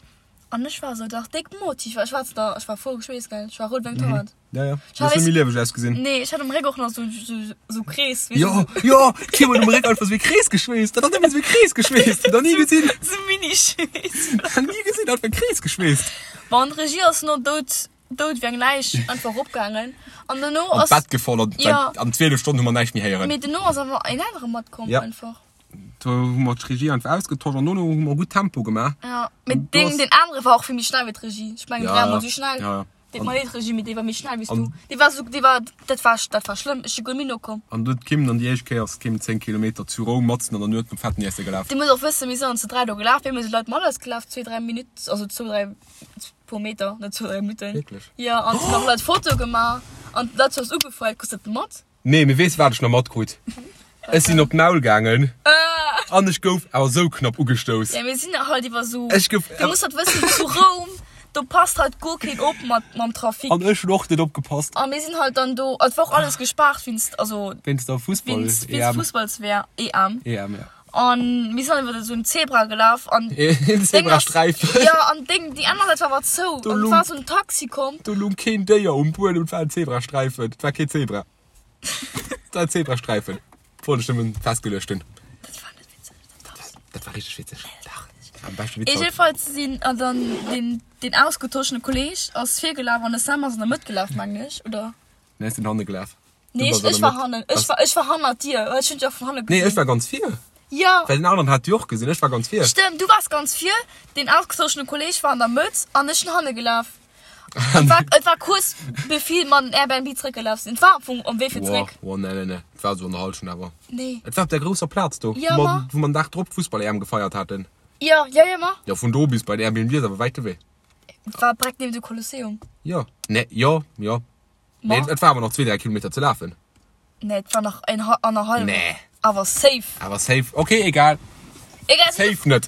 An ech war sou, dach déck Motiv, ech war da, ech war voll geschweesst, gell, ech war rout wéi eng Tomat. Ja, ja. Du hues net méi lieweg ausgesinn. Nee, ech hat um Réck och nach sou, sou, sou Krees, weess Jo, jo, d'Kim huet um Réck einfach sou ee Krees geschweesst. Dat ass nëmmen sou ee Krees geschweesst. Nach ni gesinn. Sou Mini-Schweess. Nach ni gesinn, einfach e Krees geschweesst. Bon, d'Regie ass no dout dout wéi eng Läich einfach eropgaangen an dono An ass d'Bett gefall an Ja. an 12 Stonnen hu mer näischt méi héieren. Mee dono ass awer een anere matkomm Ja. einfach. Do hu mer d'Regie einfach ausgetosch an dono hu mer gutt Tempo gemaach. Ja, mee An do deen ass- deen anere war och vill méi schnell wéi d'Regie. Ech mengen Ja, dräimol esou schnell. ja, ja. Deet An- mer leed Regie, mee dee war méi schnell wéi s An- du. Dee war esou, dee war, dat war, dat war schlëmm. Ech si guer méi nokomm. An du huet d'Kim dann déi éischt Kéier ass d'Kim 10 Kilometer zu Roum matzen an der Nuet nom fetten Iesse gelaf. Dir musst och wëssen, mir sinn dann zu 3 do gelaf, mir hu Leit mat eis gelaf, zwee, dräi Minutt, also zwou, dräi puer Meter, net zwou, dräi Minutten. Wierklech? Jo, an hunn nach Leit Fotoe gemaach an d'Leit hu eis ugefeiert. Krus dat mat? Nee, mee weess wat ech nach matkrut? Ech sinn op d'Maul gaangen an ech gouf awer sou knapp ugestouss. Ja, mir sinn halt iwwer sou. Ech gouf. Du muss halt wëssen, zu Roum, do passt halt guer keen op mat mam Trafic. An ech hunn och net opgepasst. A mir sinn halt dann do, et war och alles gespaart wéinst, also. Wéinst der Fussball-EM. Wéinst Fussballs-EM. EM, ja. An mir sinn iwwer esou en Zebra gelaf an En Zebrasträifen. Jo, an Deng, déi aner Säit war awer zou. Do An et lung- war esou en Taxi komm. Do lung keen Déier um Buedem, et war en Zebrasträifen. Et war keen Zebra. Et war en Zebrasträifen. Wollt ech nëmmen festgeluecht hunn. Dat war net witzeg. Dat war Dat war richteg witzeg. Dach, dat war am beschte Witz haut. Jedenfalls sinn an dann den den ausgetoschene Kolleg ass virgelaf an de Sam ass an der Mëtt gelaf, mengen ech, oder? Nee, ech sinn hanne gelaf. Nee, ech, ech war hannen. Ech war, ech war hannert dir. Ech hunn dech och vun hanne Nee, gesinn. ech war ganz vir. Ja. Well den aneren hat déi och gesinn. Ech war ganz vir. Stëmmt, du waars ganz vir, deen ausgezochene Kolleg war an der Mëtt an ech sinn hanne gelaf. Et war, et war kuerz bevir mer an den Airbnb zréckgelaf sinn. Et war am Fong um Wee fir Wow, zréck. wow, nee, nee, nee. Et war esou an der Hallschent awer. Nee. Et war op där grousser Plaz do, Ja, wou ma. mer, wou mer den Dag drop d'Fussball-EM gefeiert haten. Ja, ja, ja, ma. Jo, vun do bis bei den Airbnb ass awer wäit de Wee. Et war direkt niewent dem Kolosseum. Jo, nee, jo, jo. Ma? Nee, et war awer nach zwee, dräi Kilometer ze lafen. Nee, et war nach en annerhallwen. Nee. Awer safe. Awer safe. Okay, egal. Egal. Safe net.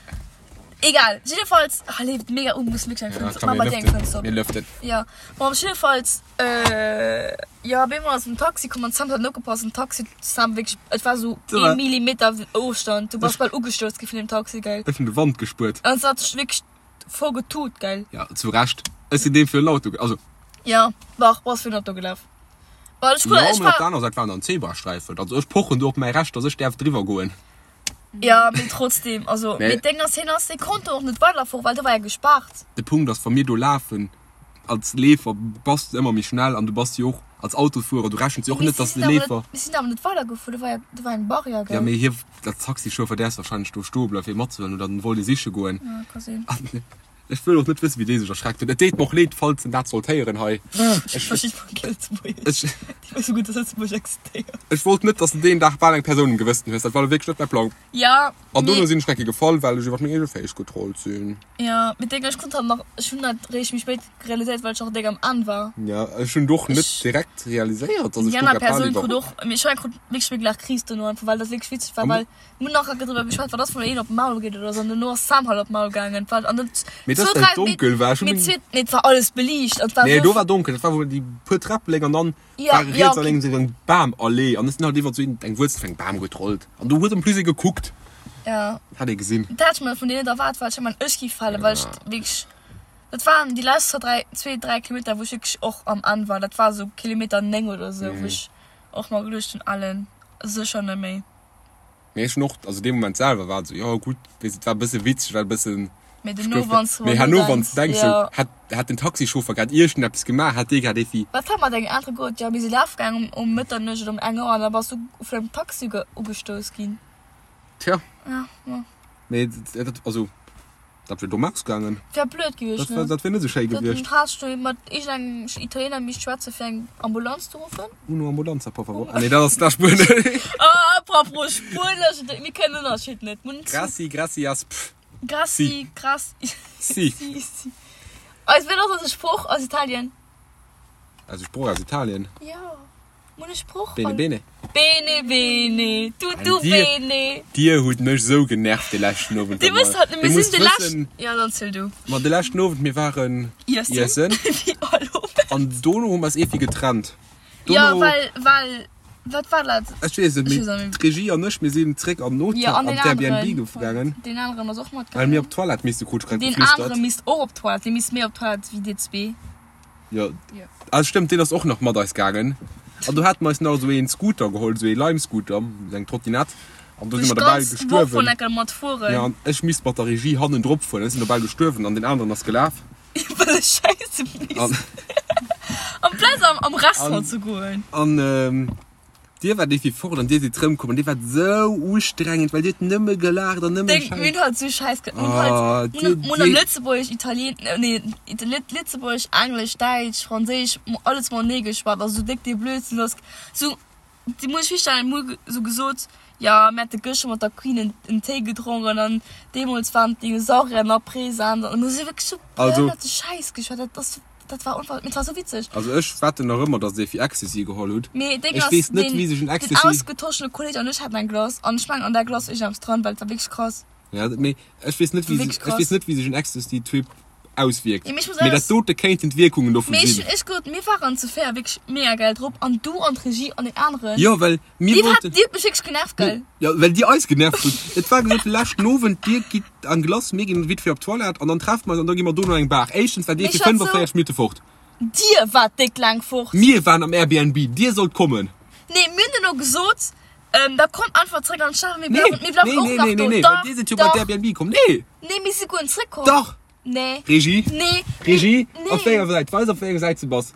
Egal. Jiddefalls, ah, leeft mega un, muss wierklech eng Fënster, mach mal dir eng Fënster op. Mir lëften. Ja. Bon, op jiddefalls, äh, jo, op eemol ass en Taxi komm an d'Sam hat net opgepasst. Den Taxi, d'Sam wierklech, et war sou ee Millimeter Ofstand, du bass bal ugestouss gi vun deem Taxi, gell. Ech hunn de Wand gespuert. An se hat sech wierklech Voll getut, gell? Ja, zu Recht. Ech sinn deem fir en Auto, also. Ja, dach, bass fir en Auto gelaf. Well ech, Jo, ech mee op war. der aner Säit waren dann Zebrasträifen. Also ech pochen do op mäi Recht, dass ech däerf driwwer goen. Ja, mee trotzdem, also, Mee. mee d'Déng ass, hien ass, dee konnt do och net weiderfueren, well do war ja gespaart. De Punkt ass, wa mir do lafen, als Leefer bass de ëmmer méi schnell an du bass jo och als Autofuerer, du rechens jo och Mee net, si dass de sinn awer net, Leefer. mir sinn awer net weidergefuer, do war ja, do war eng Barrière, Ja, gell? mee hie, als Taxichauffer däerfs warscheinlech do stoe bleiwen, fir matzehuelen oder en wollt ee siche goen. Ja, ka sinn. An ech wëll och net wëssen, wéi dee sech erschreckt huet. Et deet mer och leed, falls en dat sollt héieren hei. Ech versti voll kee Lëtzebuergesch. Ech, Déi wësse gutt, dass Lëtzebuerg existéiert. ech wollt net, dass de deen Dag bal eng Persoun um Gewëssen hues. Dat war lo wierklech net mäi Plang. Ja. An dono sinn ech nach eng Kéier gefall, well ech iwwer meng eege Féiss getrollt sinn. Jo, mee déng, ech konnt halt nach, ech hunn dat réischt méi spéit realiséiert, well ech och déck am Enn war. Jo, ech hunn et och net direkt realiséiert, dass ech Déi do aner grad bal Persoun krut iwwer. och, mee ech krut wierklech méi gelaach Kris dono einfach, well dat wierklech witzeg war, well mir hunn nach enke driwwer geschwat, wat ass, wann een op d'Maul geet oder sou, an dono ass Sam halt op d'Maul gaangen, well an dat Mee dass zwou, dat dräi, donkel war, ech hunn mee meng. zwee, nee et war alles beliicht an et war Nee, sou. do war donkel, dat war wou déi puer Träpp léng an dann Ja, war ja, riets a okay. lénks esou eng Bamallee an ech sinn halt iwwert sou eng Wuerzel vun engem Bam getrollt an do huet en plus ee gekuckt. Ja. Hat ee gesinn. Dat hat ech mer vun dir net erwaart, well ech mengen ech gi falen, well ech wierklech, dat waren déi lescht zwou, dräi, zwee, dräi Kilometer, wou ech wierklech och am Enn war. Dat war esou Kilometer 9 oder esou, wou ech och mer geduecht hunn, Alen, sécher net méi. Mee ech hunn och, also dee Moment selwer war et esou, jo gutt, weess et war e bësse witzeg, war e bëssen, Mee ech dono, gouf, wann s de mee drun herno wann s denks, de denks esou, jo. hätt, hätt den Taxichauffer grad iergendeppes gemaach, hätt dee grad evi. Wat war mat engem anere Goat? Jo, mir si laf gaang um Mëtternuecht oder um eng Auer an da bass du vun engem Taxi ugestouss ginn. Tja. Ja, ma. Mee dat, also dat wier domm ausgaangen. Wär blöd gewiescht, Dat, ne? dat wier net esou schéi gewiescht. Dat has du mat iergendengem Italiener misst schwätze fir eng Ambulanz ze ruffen. Uno ambulanza, por favor. Ah nee, dat ass dat Spuenesch. Ah, apropos Spuenesch, mir kënnen den Ënnerscheed net. Graci, gracias, pff. Graci, Si. graci. Si. Si, si. Eis, wéi ass eise Sproch aus Italien? Eise Sproch aus Italien? Jo. Mun e Sproch Bene bene. Bene bene, tutto An dir, bene. dir hutt mech sou genervt de leschten Owend. Dir wësst halt net, Dir mir musst sinn de wëssen, leschten. Ja, dann ziel du. Ma de leschten Owend, mir waren Iessen. iessen. Wéi all Owend. An dono hu mer eis eeffi getrennt. Ja, Dono, well, well, wat war dat? ech weess et Ech net, weess och mee net. d'Regie an ech, mir sinn zréck an den Hotel, Ja, an an deen d'Airbnb aneren. gaangen. Deen aneren ass och Well mir matgaangen. op d'Toilette misste, krut ech grad Deen geflüstert. anere misst och op d'Toilette. Dee misst méi op d'Toilette wéi dir zwee. Jo, ah stëmmt, deen ass och nach mat eis gaangen. An do hate mer eis nach esou een Scooter geholl, esou ee Lime-Scooter, esou eng Trottinette. An do si mer dobäi gestuerwen. Jo, an ech misst mat der Regie hannendrop fueren. Ech sinn dobäi gestuerwen an deen aneren ass gelaf. Well ech scheisse misst. Amplaz am Restaurant ze goen. An Dir waart iergendwéi fort an dir sidd rëmkomm an dir waart sou ustrengend, well dir hutt nëmme gelaacht an nëmme Deng, mir hunn halt sou Schäiss ge-, mir hunn halt, Oh, mir dir, hunn, mir hunn dir. Lëtzebuergesch, Italien, nee, Lëtzebuergesch, Englesch, Däitsch, Franséisch, alles matenee geschwat, also sou déck dee Blödsinn ass, sou, dir musst iech virstellen, mir hu sou gesot, jo, mir hätte gëschter mat der Queen en, en Téi gedronken an deemools waren d'Dinosaurier nach present an mir hu sou wierklech sou Also. behënnerte Schäiss geschwat, dat ass. Dat war unver mee et war sou witzeg. Also ech wetten nach ëmmer dass dir fir Ecstasy geholl hutt. Mee Ding Ech ass, weess net den, wéi sech en den Ecstasy. ausgetoschene Kolleg an ech haten eng Glace an ech mengen an där Glace war iergendeppes dran, well et war wierklech krass. Ja, mee ech weess net wéi Wierklech sech, ech weess krass. net wéi sech en Ecstasy Trip auswierkt. Ja, mee ech muss Mee dat alles. dote kéinten d'Wierkungen dovun Mee ech sinn. hunn echt gesot, mir waren zu véier wierklech mega geil drop an du an d'Regie an deen aneren. Jo, well mir Dir hat, wollten. dir hutt mech wierklech genervt, gell? Jo, well dir eis genervt hutt. Et war gesot, de leschten Owend, dir gitt an Glace, mir ginn vite fait op d'Toilette an dann treffe mer eis an da gi mer dono an eng Bar. Éischtens war dir Mee fir ech war sou. 45 Minutte fort. Dir waart déck laang fort. Mir waren am Airbnb, dir sollt kommen. Nee, mir hunn duerno gesot, da kommt einfach zréck an d'Stad, mir Nee, bleiwen, mir bleiwen nee, och nee, nach nee, do. nee, nee, well Dach, dir sidd jo bei dach. d'Airbnb komm. Nee! Nee, mir si guer net zréckkomm. Dach! Nee. Regie? Nee. Regie? Nee. Op wéi enger Säit? Weis op wéi enger Säit du bass.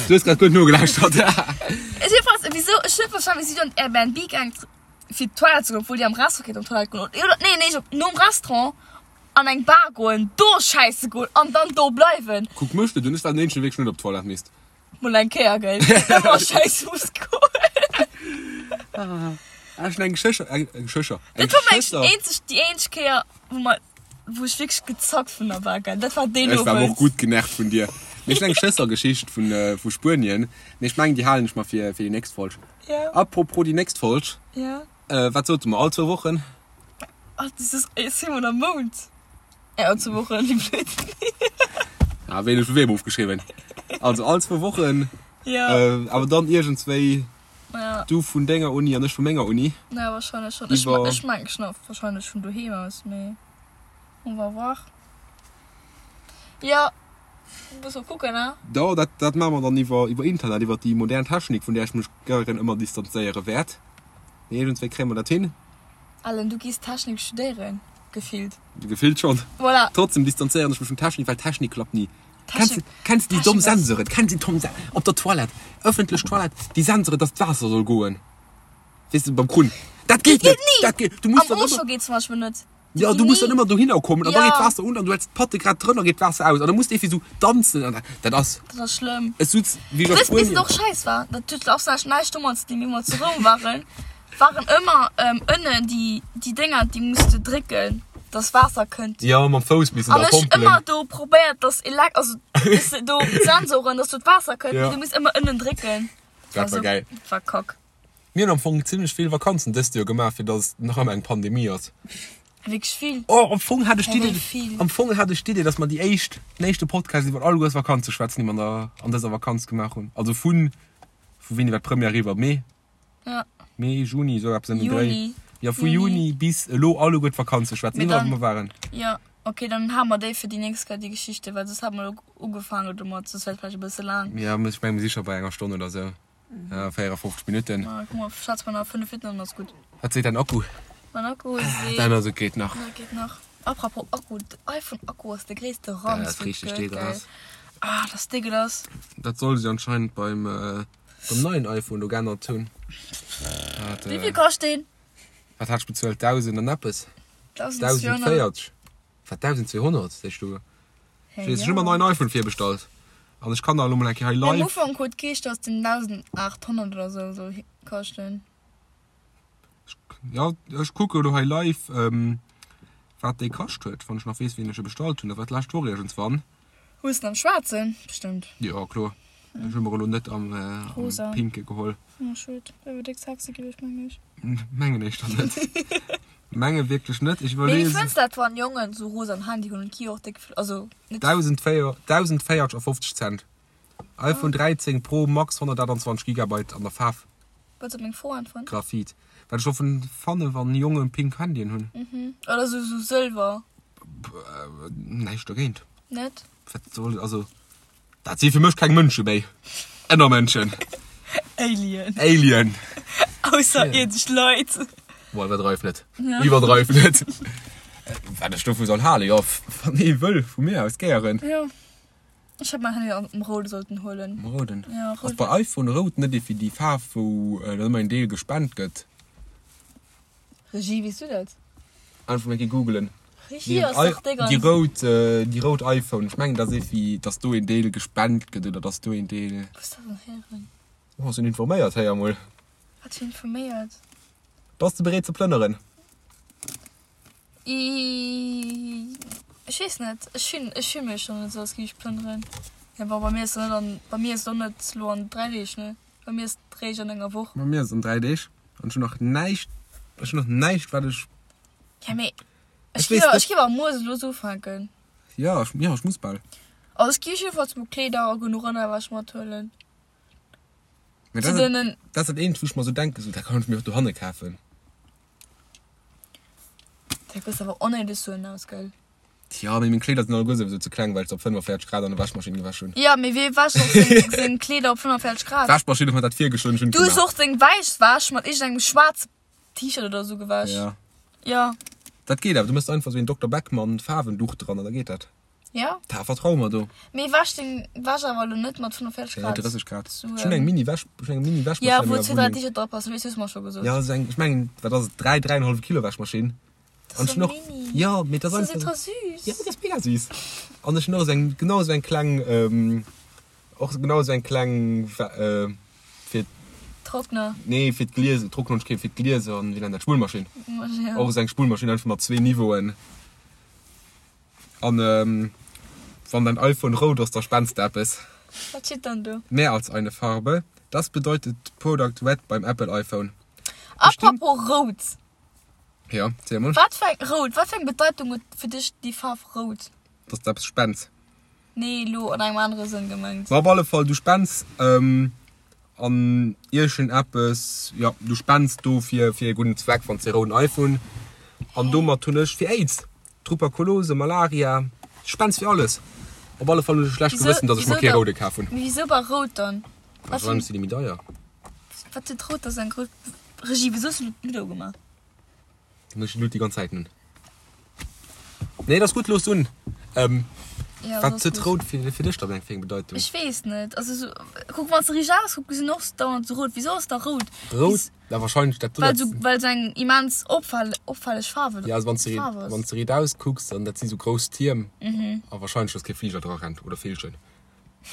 Du hues grad gutt nogelauschtert. Ech jedenfalls, wieso, ech hunn net verstanen, wéi si du an d'Airbnb gaang fir d'Toilette ze goen, obwuel déi am Restaurant kéint op d'Toilette goen. Oder, nee, nee, op, nom Restaurant an eng Bar goen, do schäisse goen an dann do bleiwen. Kuck mech net un, ech war den eenzegen, dee wierklech net op d'Toilette misst. Mol eng Kéier, gell? Ëmmer schäisse muss goen. Ah, ech hunn eng Geschécher, eng Geschécher, eng Dat war meng Geschëschter. eenzeg, déi eenzeg Kéier, wou mer, wou ech wierklech gezackt vun der war, gell? Dat war deen Ech war awer och Owend. gutt genervt vun dir. Mee ech hunn eng Schëssergeschicht vun, vu Spuenien, mee ech mengen, déi halen ech mer fir, fir déi nächst Folg. Ja. Apropos déi nächst Folg. Ja. Äh, wat sote mer? All zwou Wochen? Ach, das ist, jetzt sinn mer am Mount. Ja, all zwou Wochen, wéi blöd. Ah, wéi ech vu weem ofgeschriwwen. Also all zwou Wochen. Ja. Äh, awer dann iergendswéi. Ja. Du vun denger Uni an ech vu menger Uni. Ja, wahrscheinlech schon. Ech, Iwwer. ech mengen schon wahrscheinlech vun doheem aus, mee on va voir. Ja, muss mal kucken, ne? Da, dat, dat maache mer dann iwwer, iwwer Internet, iwwer déi modern Technik, vun där ech mech gären ëmmer distanzéiere wäert. Mee iergendswéi kréie mer dat hin. Alan, du gees Technik studéieren, gefillt. Gefillt schon. Voilà. Trotzdem distanzéieren ech mech vun Technik, well Technik klappt ni. Kennst Technik, kennst du déi domm Technik ass. Sensoren? Kennst du déi domm Sen op der Toilette, ëffentlech Toilette, déi Sensoren, dass d'Waasser soll goen, weess de, beim Krunn. Dat geet Dat geet net! ni! Dat geet, du muss Am dann ëmmer. Auchan geet zum Beispill net. Ja, du muss dann ëmmer dohinner kommen an da Ja. geet d'Waasser un an du häls d'Patte grad drënner, geet d'Waasser aus an da muss de irgendwie sou danzen an dat ass. Dat ass schlëmm. Ech sutz wéi ech a Wëss, bis et Spuenien. och schäiss war, dat huet och näischt domat ze dinn, wéi mer zu Roum waren. Waren ëmmer ënnen déi déi Dénger déi muss de drécken dass Waasser kënnt. Jo mam Fouss missen da pompelen. An ech ëmmer do probéiert dass Elek also dass do d'Sensoren dass do d'Waasser kënnt, mee du muss ëmmer ënnen drécken. Dat war geil. Dat war kack. Mir hunn am Fong zimlech vill Vakanzen dëst Joer gemaach fir dass et nach ëmmer eng Pandemie ass. Wierklech vill. Oh am Fong hat ech d'Idee am Fong hat ech d'Idee dass mer déi éischt den éischte Podcast iwwer alleguers Vakanze schwätzen déi mer an der an dëser Vakanz gemaach hunn. Also vun vu wéini war d'Première eriwwer? Mee? Ja. Mee, Juni, sou eppes ëm den Dréi. Juni. Jo, vu Juni bis elo alleguer d'Vakanze schwätzen, Mee iwwerall dann, wou mer waren. jo, okay, dann hale mer déi fir déi nächst Kéier, déi Geschichte, well soss hate mer elo ugefaangen domat, soss wär et vläicht e bësse laang. Jo, ech menge mir si scho bei enger Stonn oder sou, 54 Minutten. Ma kuck mol, schwätze mer nach 5 Minutten an dann ass gutt. Wat seet däin Akku? Mäin Akku seet. Däin ass, et geet nach. Jo, geet nach. Apropos Akku, den iPhone-Akku ass de gréisste Ranz, Dat ass richteg dégueulasse. Ah, dat ass dégueulasse. Dat solle se anscheinend beim. Beim neien iPhone do geännert hunn. Wéi vill kascht deen? Wat hat ech bezuelt? 1000 an eppes? 1040. Wat 1200 sees du? Ech weess, ech hu mer en neien iPhone virbestallt an ech kann der elo mol eng Kéier hei live. Am Ufank huet geheescht, dass den 1800 oder sou soll kaschten. Jo, ech kucke elo hei live, wat dee kascht huet, wann ech nach weess, wéini ech e bestallt hunn. Dat war d'lescht Woch iergendswann. Hues den am schwaarzen? Bestëmmt. Jo, kloer. Ech hu mer elo net am Rosa. pinke geholl. Oh, schued. Dat wier déck sexy gewiescht, mengen ech. Mengen ech dann net. Menge wierklech net. Ech Mee wéi iwwerlees. fënns dat, wann Jongen sou rosa Handy hunn? Et gi jo och déck vill, also net. 1054 Cent. iPhone 13 Pro Max 128 Gigabyte an der Faarf. Wëlls op meng Fro äntweren? Graphit. Wat ech dovun fanne wann Jongen pink Handyen hunn. Mhm. Oder sou sou sëlwer. Näischt dogéint. Net? Wat soll, also dat si fir mech keng Mënsche méi. Ënnermënschen. Alien. Alien. Ausserierdesch Leit. Boah, iwwerdreif net. Iwwerdreif net. Wat ech dovu soll halen? Jo, wann ee wëll, vu mir aus gären. Jo. Ech hätt mäin Handy am Roude sollten huelen. Am Rouden? Ja, rout. Ass bei iPhone rout net déi déi Faarf wou dann ëmmer een Deel gespent gëtt? Regie, weess du dat? Einfach mol eng Kéier googelen. Regie ass dach déi ganz. Déi rout, déi rout iPhone. Ech mengen dat ass iergendwéi, dass do een Deel gespent gëtt oder dass do een Deel. Wou hues dat dann héieren? Oh, sinn informéiert, héier mol. Wat fir informéiert? Bass de bereet ze plënneren? Ech weess net, ech finn, ech fill mech schon net esou, als géif ech plënneren. Ja bon, bei mir ass et net an, bei mir ass et och net elo an 3 Deeg, ne? Bei mir ass et réischt an enger Woch. Bei mir ass et an 3 Deeg an ech hunn nach näischt, ech hunn nach näischt wat ech. Ja mee ech géif, ech géif awer muer elo esou ufänken. Ja, ech, ja ech muss bal. Also ech géif jiddefalls mol Kleeder a genuch Ënnerwäsch mathuelen. Mee dat ass, dat ass dat eenzegt wou ech mer esou denken, esou dat kann ech mir och dohanne kafen. Dat gesäit awer onnéideg suen aus, gell? Tja, mee meng Kleeder sinn alleguer souwisou ze kleng, well ech se op 45 Grad an der Wäschmaschinn gewäsch hunn. Jo, mee wee wäscht och seng, seng Kleeder op 45 Grad? D'Wäschmaschinn huet mer dat virgeschloen, ech hunn et Du hues gemaach. och deng wäiss Wäsch mat iergendengem schwaarze T-Shirt oder sou gewäsch. Ja. Jo. Dat geet awer, du méchs einfach sou een Dokter Beckmann Faarwenduch dran an da geet dat. Ja. Da vertrau mer do. Mee wäsch deng Wäsch awer elo net mat 45 Grad. Nee, 30 Grad. Ech hunn eng Mini Wäsch, ech hunn eng Mini Wäschmaschinn. Ja, wou zwee, dräi T-Shirt dra passen, weess, hues mer scho gesot. Ja, sou eng, ech mengen, wat ass et, 3, 3,5 Kilo Wäschmaschinn. Dat ass sou mini. Ja, mee dat ass einfach. Dat ass ultra süß. Ja, dat ass mega süß. An ech hunn och esou eng, genau esou eng kleng, och genau esou eng kleng, fir. Trockner. Nee, fir d'Glieser, Trockner hunn ech keng, fir d'Glieser an, wéi nennt dat, Spullmaschinn. Ja. Och esou eng Spullmaschinn, einfach mat zwee Niveauen. An wann dein iPhone rout ass, da spends de eppes. Wat steet dann do? Mehr als eine Farbe, das bedeutet Product Red beim Apple iPhone. Apropos rout. Jo, ziel mol. Wat fir eng, rout, wat fir eng Bedeitung huet fir dech déi Faarf rout? Dass de eppes spends. Nee, elo an engem anere Sënn gemengt. Ma op alle Fall, du spends An iergend eppes, jo, du spends do fir fir e gudden Zweck, wann s de e rouden iPhone, an domat hunn ech fir Aids, Truperkulose, Malaria, du spends fir alles. Op alle Fall hunn ech e schlecht Gewëssen, datt ech mer kee roude kaf hunn. Mee wisou bei rout dann? Wahrscheinlech si déi méi deier. Wat huet rout da sou eng grouss Regie? Wisou hues du elo d'Ludo gemaach? Dann ech Lut déi ganz Zäit nun. Nee, dat ass gutt, looss un. Ähm, Ja, wat ass huet gutt. rout fir, fir dech dann eng fir eng Bedeitung? Ech weess net. Also so, kuck, wann s de riicht auskucks, gesinn och dauernd sou rout. Wisou ass da rout? Rout? Wis- Ja, wahrscheinlech dat Well sou, well sou eng immens opfall, opfälleg Faarf, Ja, also wann s de Faarf ass. wann s de riit auskucks, dann dat si sou grouss Tierm. A wahrscheinlech, dass kee Fliger dra rennt oder Villchen.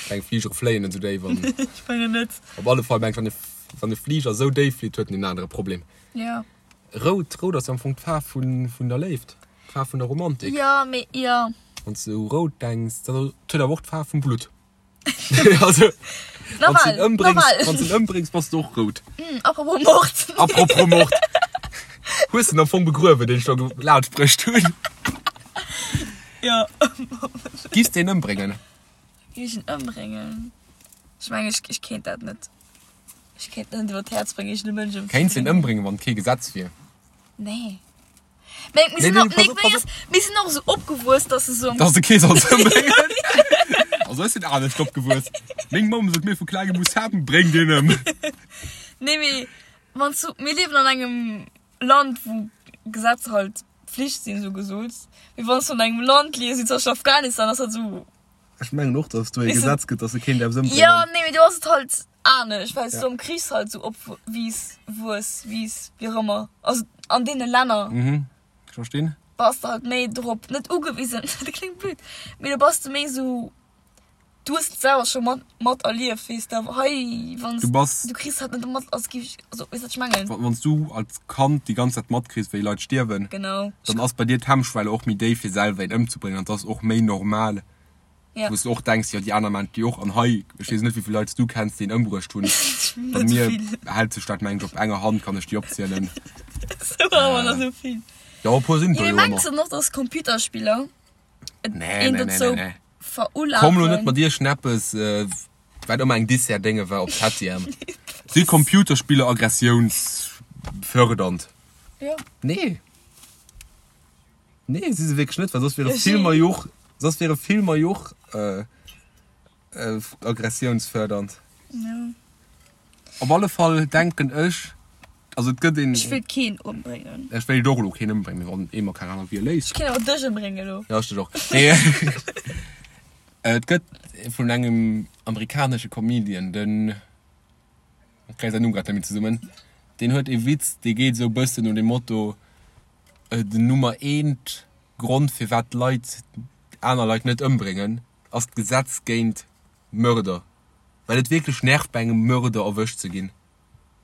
Kleng Fligere fléien net sou déif an. Ech mengen net. Op alle Fall mengen ech, wann e. Wann e Fliger esou déif flitt, huet en en anere Problem. Ja. Rout, rout ass jo am Fong d'Faarf vun, vun der Léift, d'Faarf vun der Romantik. Ja, mee, ja. Wann s de u rout denks, dann et huet awer och d'Faarf vum Blutt. Also, wann s de en ëmbréngs, wann s de en ëmbréngs, bass de och rout. Apropos Mord. Apropos Mord. Hues de en am Fong begruewen, deen ech do laanschtbruecht hunn? Ja. Giffs de en ëmbréngen? Géif ech en ëmbréngen? Ech mengen, ech, ech kéint dat net. Ech kéint net iwwer d'Häerz bréngen, iergend e Mënsch ëmzebréngen. Kéints de en ëmbréngen, wann et kee Gesetz wier? Nee. Mee mir sinn och, nee, nee, ass, mir sinn och esou opgewuess, dass se sou. Dass de kee solls ëmbréngen? Also ech sinn anescht opgewuess. Meng Mamm sot mir vu klengem u, Sam, bréng deen ëm. Nee, mee wann s du, mir liewen an engem Land, wou Gesetzer halt Pflicht sinn, sou gesot. Mee wann s du an engem Land liefs, wéi zum Beispill Afghanistan, ass dat sou. Ech mengen och, dass et do ee Gesetz gëtt, dass e keen däerf ëmbréngen. Jo, nee, mee do ass et halt anescht, well s du am Krich halt sou opwiiss, wuess, wiiss, wéi och ëmmer. Also an deene Länner. Mhm, ech verstinn. Bass de halt méi drop, net ugewisen, dat kléngt blöd, mee do bass de méi sou, du hues et selwer scho mat, mat erlieft, weess de. Awer hei, wann s Du bass. du kriss halt net mat, als géif ech, also weess wat ech mengen? Wann s du als Kand déi ganz Zäit matkriss, wéi Leit stierwen. Genau. Dann ass bei dir d'Hemmschwelle och méi déif fir selwer een ëmzebréngen an et ass och méi normal, Ja. wou s du och denks, jo déi aner maachen et jo och an hei, ech weess net wéi vill Leit s du kenns, déi een ëmbruecht hunn. Bei Net mir vill. hält sech dat meng ech op enger Hand kann ech déi opzielen. Sou awer nach sou vill. Jo e puer sinn et Jo, der mee jo mengs ëmmer. de noch, dass Computerspiller et Nee, een nee, nee, dozou nee, nee. verulafen? Komm lo net mat iergendeppes, wat ëmmer eng Dessert-Dénge war op Septième. Si Computerspiller aggressiounsfördernd? Jo. Nee. Nee, si se wierklech net, well soss wiere Filmer jo och, soss wiere Filmer jo och aggressiounsfördernd. Jo. Op alle Fall denken ech, also et gëtt een. Ech wéilt keen ëmbréngen. Ech wéilt och elo keen ëmbréngen, mee wann ee mer keng aner Wiel léisst. Ech kéint awer dech ëmbréngen elo. Jo, ech dech och. Nee, et gëtt vun engem amerikanesche Comedian, den, ech kréie säin Numm grad net méi zesummen, deen huet ee Witz, dee geet esou e bëssen no dem Motto, den Nummer eent Grond firwat d'Leit aner Leit net ëmbréngen, ass d'Gesetz géint Mörder. Well et wierklech nervt bei engem Mörder erwëscht ze ginn.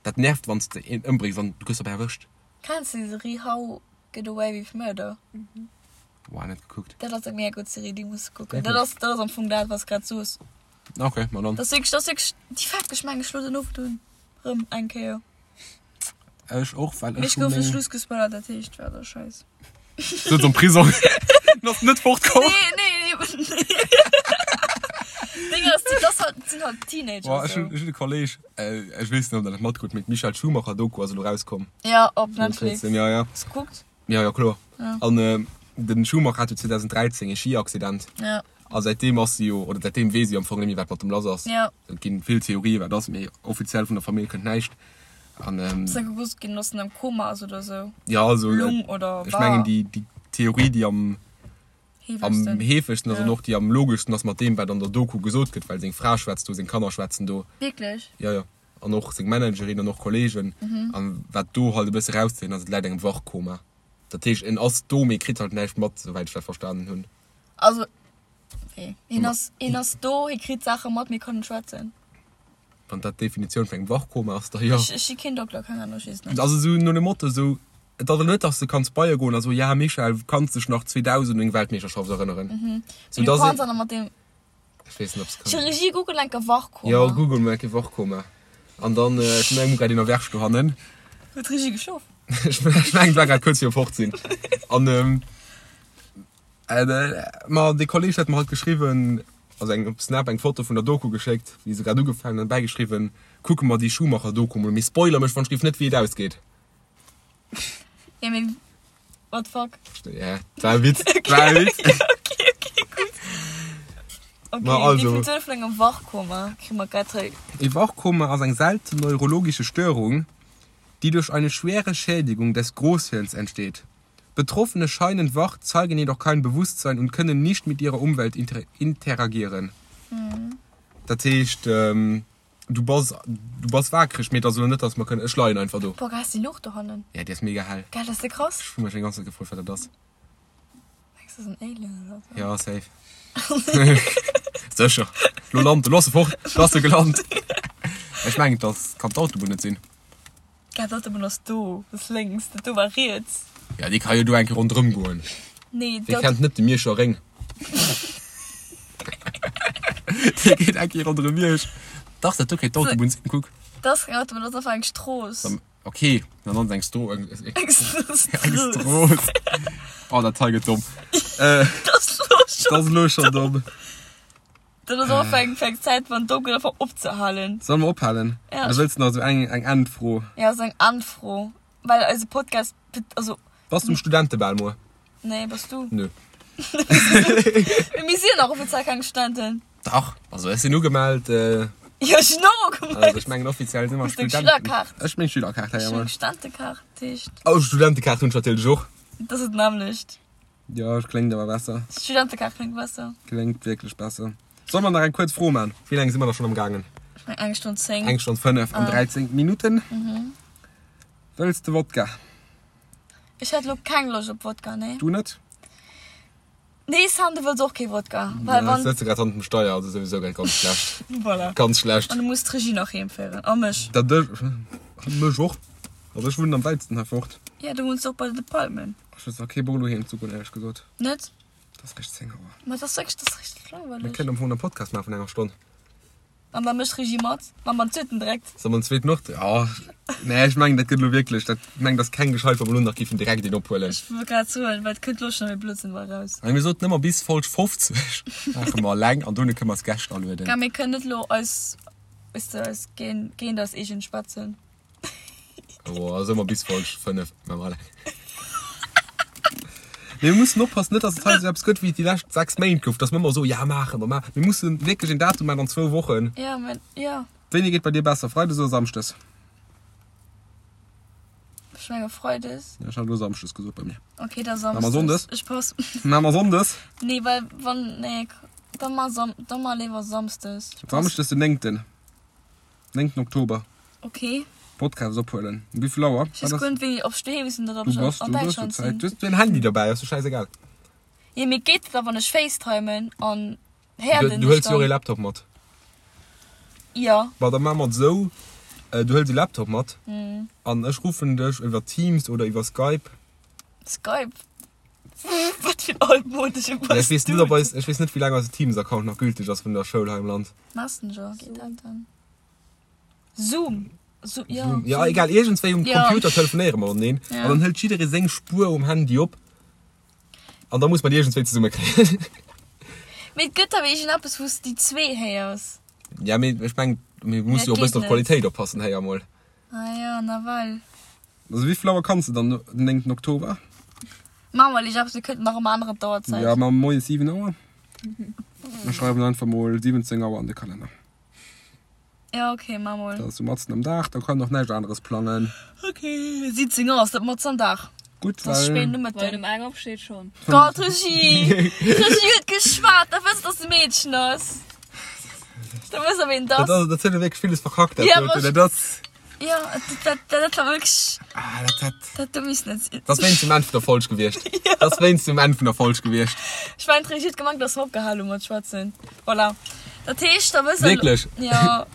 Dat nervt wann s de een ëmbréngs an du gëss dobäi erwëscht. Kenns de déi Serie How Get Away With Murder? Boah, net gekuckt. Dat ass eng mega gutt Serie, déi muss de kucken. Dat ass, dat ass am Fong dat, wat s grad soos. Ok, ma dann. Dat ass wierklech, dat ass wierklech, déi fält ech meng ech lo den Owend un, rëm eng Kéier. Ech och, well Mee ech ech hu gouf de meng. Schluss gespoilert, dat heescht, war da scheiss. Sëtz am Prisong. Du ass net fortkomm. Nee, nee, nee, nee. Ding ass, dat ass halt, sinn halt Teenager. Boah, ech hunn, ech hunn e Kolleg, ech weess net, ob der dat matkritt, mee d'Michael Schumacher Doku ass elo rauskomm. Ja, op Netflix. Ja, ja. Hast du gekuckt? Ja, ja, kloer. Ja. An den Schumacher hat jo 2013 e Skiaccident. Ja. A säitdeem ass si jo, oder säitdeem weess si am Fong net méi, wat mat dem lass ass. Ja. Et ginn vill Theorien, wat ass, mee offiziell vun der Famill kënnt näischt. An, ähm, Ass da gewosst ginn, dass en am Koma ass oder sou? Ja, also, Lung oder ech mengen, déi, déi Theorie, déi am, am Heefegsten. heefegsten ass Ja. an och déi am logeschsten ass mat deem, wat an der Doku gesot gëtt, well seng Fra schwätzt do, seng Kanner schwätzen do. Wierklech? Ja, ja. An och seng Managerin an och Kollegen. An wat do halt e bësse rauszehéieren ass, et läit engem Wachkoma. Dat heescht, en ass do, mee kritt halt näischt mat, souwäit ech dat verstanen hunn. Also, wéi? Hien ass, hien ass do, hie kritt Saache mat, mee kann net schwätzen. Wann dat d'Definitioun vun engem Wachkoma ass, da jo. Ech, ech si keen Dokter, keng Ahnung, ech weess et net. Also esou no dem Motto, esou, et ass elo net, dass de kanns bei e goen a soen, ja Michael, kanns dech nach 2000 un eng Weltmeeschterschaft erënneren? Sou Mee du dass kanns een, awer mat deem. ech weess net, ob s kann. Chirurgie, google enker Wachkoma. Jo, google mol enke Wachkoma. An dann, ech mengen, grad een erwächt dohannen. Huet d'Regie geschlof? Ech mengen, et war grad kuerz virum Fortsinn. An, Ma dee Kolleg huet mer halt geschriwwen, also eng op Snap eng Foto vun der Doku geschéckt, wéi se grad ugefaangen huet, an bäigeschriwwen, Kucke mer déi Schumacher-Doku mol, mee spoiler mech wann ech géif net wéi et ausgeet. Ja mee what the fuck? Ja, dat war e Witz, dat war e Witz. Ok, ok, gutt. Ok, Ma also. Definitioun vun engem Wachkoma kri mer grad hei. E Wachkoma ass eng selten neurologische Störung, déi duerch eine schwere Schädigung des Großhirns entsteet. Betroffene scheinen wach, zeigen jedoch kein Bewusstsein und können nicht mit ihrer Umwelt interagieren. Dat heescht, du bass, du bass waakreg, mee et ass elo net, dass mer kënnen, ech leien einfach do. Boah, geil ass déi Luucht dohannen. Ja, déi ass mega hell. Gell, dat ass de krass. Ech hu mech déi ganz Zäit gefrot, wat dat ass. Mengs du, dat ass en Alien oder sou? Ja, safe. Sécher. Lo lant e, lo ass e fort, lo ass e gelant. Ech mengen, dat kann d'Autobunn net sinn. Gell, d'Autobunn ass do, dat ass lénks, dat do war riets. Ja, déi ka jo do eng Kéier ronderëm goen. Nee, Wie kennt net de Mierscher Réng? Dee geet eng Kéier ronderëm Miersch. Dach, dat do kéint d'Autobunn sinn, kuck. Dat ass keng Autobunn, dat ass einfach eng Strooss. Ok, dann ass et eng Stro eng Strooss. Oh, dat hei gëtt domm. Dat ass elo schonn. Dat ass elo schonn domm. Dat ass och eng eng Zäit wann domm gëtt einfach opzehalen. Solle mer ophalen? Ja. Oder wëlls de nach esou eng eng Endfro? Ja, esou eng Endfro. Well eise Podcast, also. Bass du um Studentebal muer? Nee, bass du? Nö. Mee mir sinn nach offiziell keng Studenten. Dach, also ech sinn ugemellt. Jo, ech sinn och ugemellt. Also ech mengen offiziell si mer Hues du eng Studenten. Schülerkaart? Ech meng Schülerkaart, ja, Ech hunn jawohl. eng Studentekaart, dat heescht. Oh, Studentekaart hunn ech natierlech och. Dat ass et nämmlecht. Jo, et kléngt awer besser. Studentekaart kléngt besser. Kléngt wierklech besser. Solle mer nach eng kuerz Fro man? Wéi laang si mer da schonn am gaangen? Ech meng eng Stonn 10. Eng Stonn 5 an 13 Minutten. Wëlls de Wodka? Ech hätt lo keng Loscht op Wodka, nee. Du net? Nee, Sam, du wëlls och kee Wodka. Well Ja, wann. ech sëtze grad hannert dem Steier, also souwisou grad ganz schlecht. Voilà. Ganz schlecht. An du muss d'Regie nach heem féieren. A mech. Dat ech. Mech och. Also ech wunnen am wäitsten hei fort. Ja, du wunns och bei de Palmen. Ech hues nach kee Bock elo heem ze goen, éierlech gesot. Net? Et ass réischt 10 Auer. Ma et ass wierklech, et ass richteg langweileg. Mir kënnen am Fong en Podcast maachen vun enger Stonn. An da mécht d'Regie mat. Maache mer en zweeten direkt. Solle mer en zweeten och? Jo. Nee, ech mengen, dat gëtt elo wierklech, dat, ech mengen, dat ass keng gescheit, wa mer elo nach géifen direkt een ophuelen. Ech wollt grad soen, well et kënnt elo schonn méi Blödsinn bei eraus. Mee mir soten ëmmer, bis Folg 50 maache mer eleng an dono kënne mer eis Gäscht alueden. Gell, mir kënnen net elo eis, weess de, eis géint, géint eis eegen schwätzen. Oh, also ëmmer bis Folg 5 maache mer eleng. Mir mussen oppassen, net dass et hei esou eppes gëtt wéi et déi lescht 6 Méint gouf, dass mer ëmmer soen, ja maache mer, maache. Mir mussen wierklech een Datum maachen an zwou Wochen. Ja, mä ja. Wéini geet bei dir besser, Freides oder Samschdes? Ech menge Freides. Ja, ech hat elo Samschdes gesot bei mir. Okay, da Maache mer Samsdes. Sonndes? Ech pass. Maache mer Sonndes? Nee, well wann, nee, da mar Sam, da mar léiwer Samsdes. Ech pass. Samschdes den 9. 9. Oktober. Okay. Podcast ophuelen. Um wéi vill Auer? Ech weess guer net wéini, ob ech doheem sinn oder ob Du ech bass, an du hues Däitschland Zäit. sinn. Du hues en Handy derbäi, ass jo schäisegal. Jo, mee geet dat da wann ech facetimen an héiert Du een hëls dech jo och dann? ee Laptop mat. Jo. Ma da maache mer et esou, du hëls e Laptop mat an ech ruffen dech iwwer Teams oder iwwer Skype. Skype? Wat fir en altmodesche Ja, ech weess net, ob eis, ech weess net, wéi laang eise Teams-Account nach gülteg ass vun der Schoul hei am Land. Messenger geet dat dann? Zoom. Zoom, ja. Zoom. Ja, egal, iergendswéi um Ja. Computer telefonéiere mer mateneen. Ja. An dann hëlt jidderee seng Spuer um Handy op. An da muss mer déi iergendswéi zesummekréien. Mee et gëtt awer iergendeppes, wou s de déi zwee héiers. Ja, mee ech mengen, mir musse jo dat e bëssen geet op d'Qualitéit oppassen héi emol. Ah ja, nawell. Also wéi vill Auer kanns de dann den 9. Oktober? Maache mer lech eppes, mir kënnten nach ëmmer änneren d'Auerzäit. Ja, maache mer moies 7 Auer. Mir schreiwen einfach mol 17 Auer an de Kalenner. Ja, okay, maa mol. Dat ass sou matzen am Dag, da kann och näischt aneres plangen. Okay, 17 Auer ass dat matzen am Dag. Gutt, Dat ass well. spéit Wann Nomëtten. um eng opsteet schonn. Gott, Regie! D'Regie huet geschwat, da wësst dass e Meedchen ass. Da wësst der ween et Dat ass. ass, dat huet wierklech villes verkackt, dat Ja, doten. ma- Dat ass. Ja, dat, dat, dat war wierklech. Ah, dat, dat. Dat do misst net sinn. Dat ass wéinst dem Enn vun der Folg gewiescht. Dat ass wéinst dem Enn vun der Folg gewiescht. Ech mengen, d'Regie huet gemengt, dass mer opgehal hu mat schwätzen. Voilà. Dat heescht, da wësst der. Wierklech? Ja.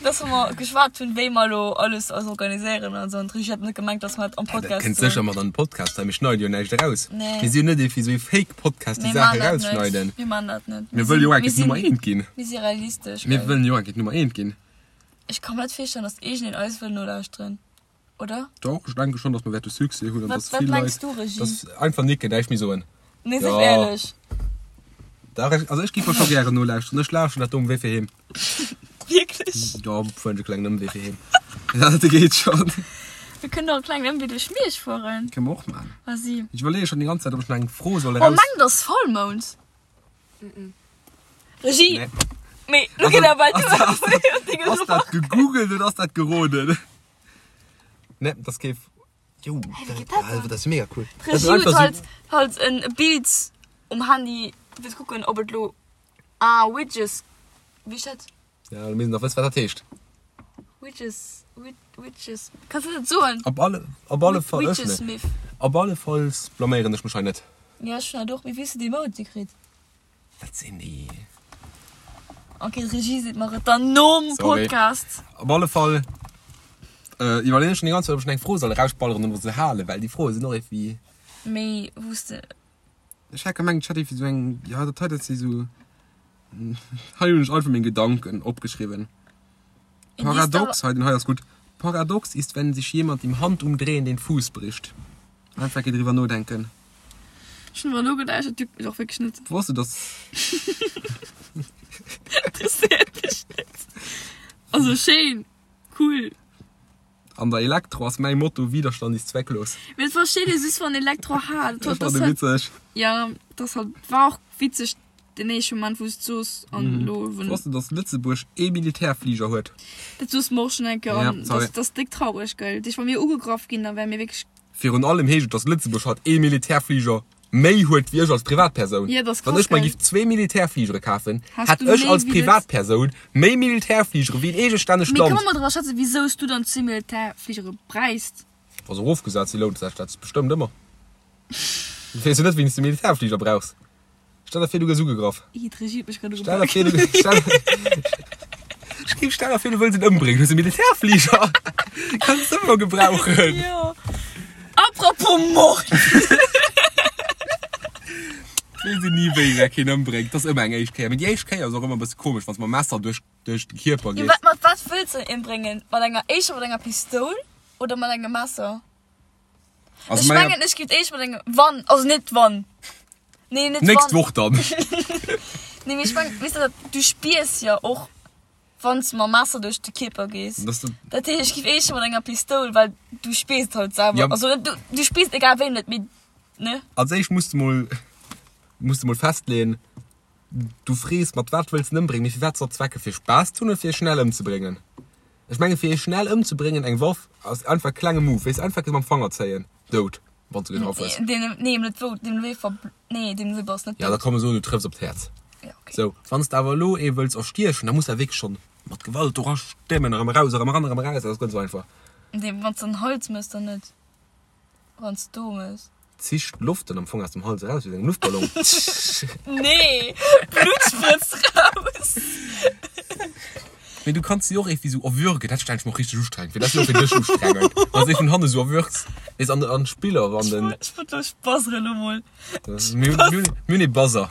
Dass mer geschwat hunn, wéi mer elo alles eis organiséieren an esou. An d'Regie hat net gemengt, dass mer dat am Dat Podcast kënnt soen. sécher mat an den Podcast, well mir schneide jo näischt eraus. Nee. Mir si jo net ee fir esou ee Fake-Podcast, déi Mir Saache man dat net. erausschneiden. Mir man dat net. Mir wëlle jo Mir enk sinn, Nummer eent ginn. mir si realistesch. Mir gell? wëllen jo enk Nummer eent ginn. Ech ka mer net virstellen, dass iergendeen eis wëll nolauschteren, oder? Doch, ech denke schon, dass mer wäerte Succès hunn an Wat, dass wat vill mengs Leit, du, Regie? dass einfach nicken, näischt méi soen. Nee, sief Ja. éierlech. Dach, ech, also ech giff mer scho gären nolauschteren. Ech lauschteren dat do um Wee fir heem. Wierklech? Jo, fueren ech e klengen Ëmwee fir heem. Dat geet schon. Mir kënnen och e klengen Ëmwee duerch Miersch fueren. Kënne mer och man. Vas-y. Ech iwwerleeë schon déi ganz Zäit, ob ech nach eng Fro soll Oh, eraus. mengt ass Vollmound? Regie! Nee. Mee, lo geet awer du. Ass dat gegoogelt oder ass dat geroden? Nee, dat ass kee. Jo, dat ass mega cool. D'Regie huet halt, halt en Bild um Handy fir ze kucken, ob et lo. Ah, Widges. Wéi heescht dat? Ja, mir missten nach wëssen, wat dat heescht. Widges, Widges. Kanns du dat soen? Op alle, op alle Fall. Widgesmith. Op alle Falls blaméieren ech mech hei net. Ja, ech hunn dat och. Mee wéi hues du déi Emoji kritt? Wat sinn déi? Ok, d'Regie seet mer et dann nom Sorry. Podcast. Op alle Fall äh, iwwerleeën ech schon déi ganz Zäit, ob ech eng Fro soll erausballeren oder se halen, well déi Froe sinn och irgendwie. Méi wou s de. Ech hat gemengt, ech hätt irgendwie sou eng, ja, dat hei, dat si sou, hei hunn ech einfach meng Gedanken opgeschriwwen. Paradox, hei, den hei ass gutt. Paradox ist, wenn sich jemand im Handumdrehen den Fuß bricht. Einfach eng Kéier driwwer nodenken. Ech hunn driwwer nogedacht, dat juckt mech och wierklech net. Wosst du, dass. Interesséiert mech net. Also schéin, cool. An der Elektro ass mäi Motto, Widerstand ist zwecklos. Mee et versteet ee just wann Elektro hat. Ech fand e witzeg. Ja, dat halt war och witzeg den éischte Moment wou s d'soos an elo wou. Wosst du, dass Lëtzebuerg ee Militärfliger huet? Dat soos mer och schon eng Kéier an Ja, sorry. dat ass déck traureg, gell. Deeg wa mir ugegraff ginn, da wäre mir wierklech. Virun allem heescht et, dass Lëtzebuerg haut ee Militärfliger méi huet wéi ech als Privatpersoun. Ja, dat ass Wann krass, ech mer gell. giff zwee Militärfligere kafen, Häss hätt du ech méi als wéi Lëtz. Privatpersoun méi Militärfligere wéi en eegestännegt Mee Land. kënne mer mol driwwer schwätzen, wisou s du dann zwee Militärfligere bräichs? Wa se erofgesat sinn, lount sech dat bestëmmt ëmmer. Du weess jo net, wéini s de Militärfliger brauchs. Stell der vir, du gëss ugegraff. Ih, d'Regie huet mech grad Stell der ugepaakt. vir, du stell, Ech géif, stell der vir, du wëlls en ëmbréngen, hues e Militärfliger. Kanns de ëmmer gebrauchen. Jo. Apropos Mord. Weess een ni, wéi wer keen ëmbréngt. Dat ass ëmmer eng éischt Kéier. Mee déi éischt Kéier ass och ëmmer e bësse komesch, wann s de mam Messer duerch, duerch de Kierper Jo, gees. wat, mat wat wëlls de en ëmbréngen? Mat enger, éischter mat enger Pistoul oder mat engem Messer? Also Ech menger- mengen, ech giff éischt mat engem, wann, also net wann. Nee, net Nächst wann. Woch dann. Nee, mee ech mengen, weess de, dat, du spiers jo och, wann s de mam Messer duerch de Kierper gees. Dass du, Dat heescht, ech giff éischter mat enger Pistoul, well du spiers et halt selwer. Ja. Also net, du, du spiers et egal wéi net, mee, ne? als éischt muss du mol, muss du mol festleeën, du frees, mat wat wëlls en ëmbréngen, mee fir wat ze erzwecken? Fir Spaass ze hunn oder fir e schnell ëmzebréngen? Ech menge fir ee schnell ëmzebréngen, eng Waff ass einfach e klenge Move, weess, einfach mam Fanger zéien, dout, wann s de getraff hues. Nee, nee, net wou, deem wéi ver, nee, deem wéi bass net Ja, da dout. komm soen, du trëffs op d'Häerz. Ja, okay. Sou, wann s de awer elo ee wëlls erstiechen, da muss de wierklech schonn mat Gewalt dora stemmen, erëm eraus, erëm eran, erëm eraus, dat ass guer net sou einfach. Nee, wann s de den Hals mëss, dann net. Wann s du mëss. Zicht d'Loft dann am Fong aus dem Hals eraus, wéi engem Luftballon. Nee, Blut sprëtzt raus. Mee du kanns si och irgendwie sou erwürgen, dat stellen ech mer och richteg ustrengend fir, dat ass jo och fir dech ustrengend, wann s de ee vun hanne sou erwürgs, weess, an an Spiller, wann den. Ech wollt elo buzzeren elo mol. Mir hunn mir hunn ee Buzzer,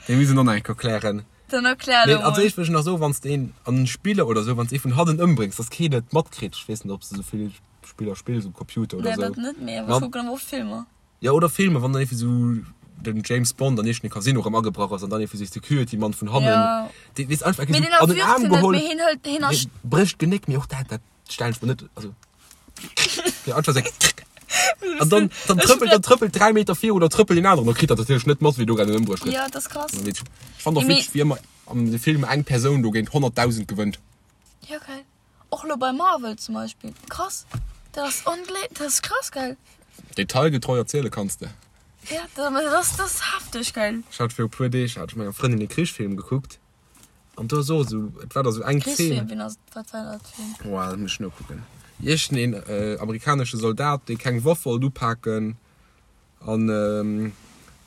dee muss een och nach eng Kéier klären. Dann erklär Nee, elo als mol. éischt wëll ech nach soen, wann s de een an Spiller oder sou, wann s de ee vun hannen ëmbréngs, dass keen et matkritt, ech weess net, ob s de sou vill Spiller spills um Computer oder Nee, sou. dat net, mee awer Wann- ech kucken awer oft Filmer. Ja, oder Filmer, wann dann irgendwie sou den James Bond an iergendee Casino erëm agebrach ass an dann irgendwie sou Security Mann vun hannen, Ja. dee weess einfach Mee sou deen an den erwürgt Aarm hien net, geholl, mee hien hëlt, hien ersch. hie brécht d'Genéck, mee och dat, dat stellen ech mer net, also ja, einfach sou an dann, dann Ech trëppelt, dann trëppelt 3 Meter viru, dann trëppelt deen aneren, da kritt dat natierlech net mat, wéi do grad en ëmbruecht gëtt. Ja, dat ass krass. Ech fand och Mee- witzeg, wéi ëmmer an de Filmer eng Persoun do géint 100.000 gewënnt. Ja, geil. Och lo bei Marvel zum Beispill. Krass. Dat ass onglé, dat ass krass geil. Detailgetreu erziele kanns de. Ja, dat, dat ass, dat ass hefteg geil. Ech hat viru puer Deeg hat ech menger Frëndin e Krichsfilm gekuckt an do ass och esou, et war da esou eng Zeen. Krichsfilm, wien ass, wat war dat fir een? Boah, dat muss ech nokucken. Iergendeen amerikanesche Soldat, dee keng Waff wollt upaken An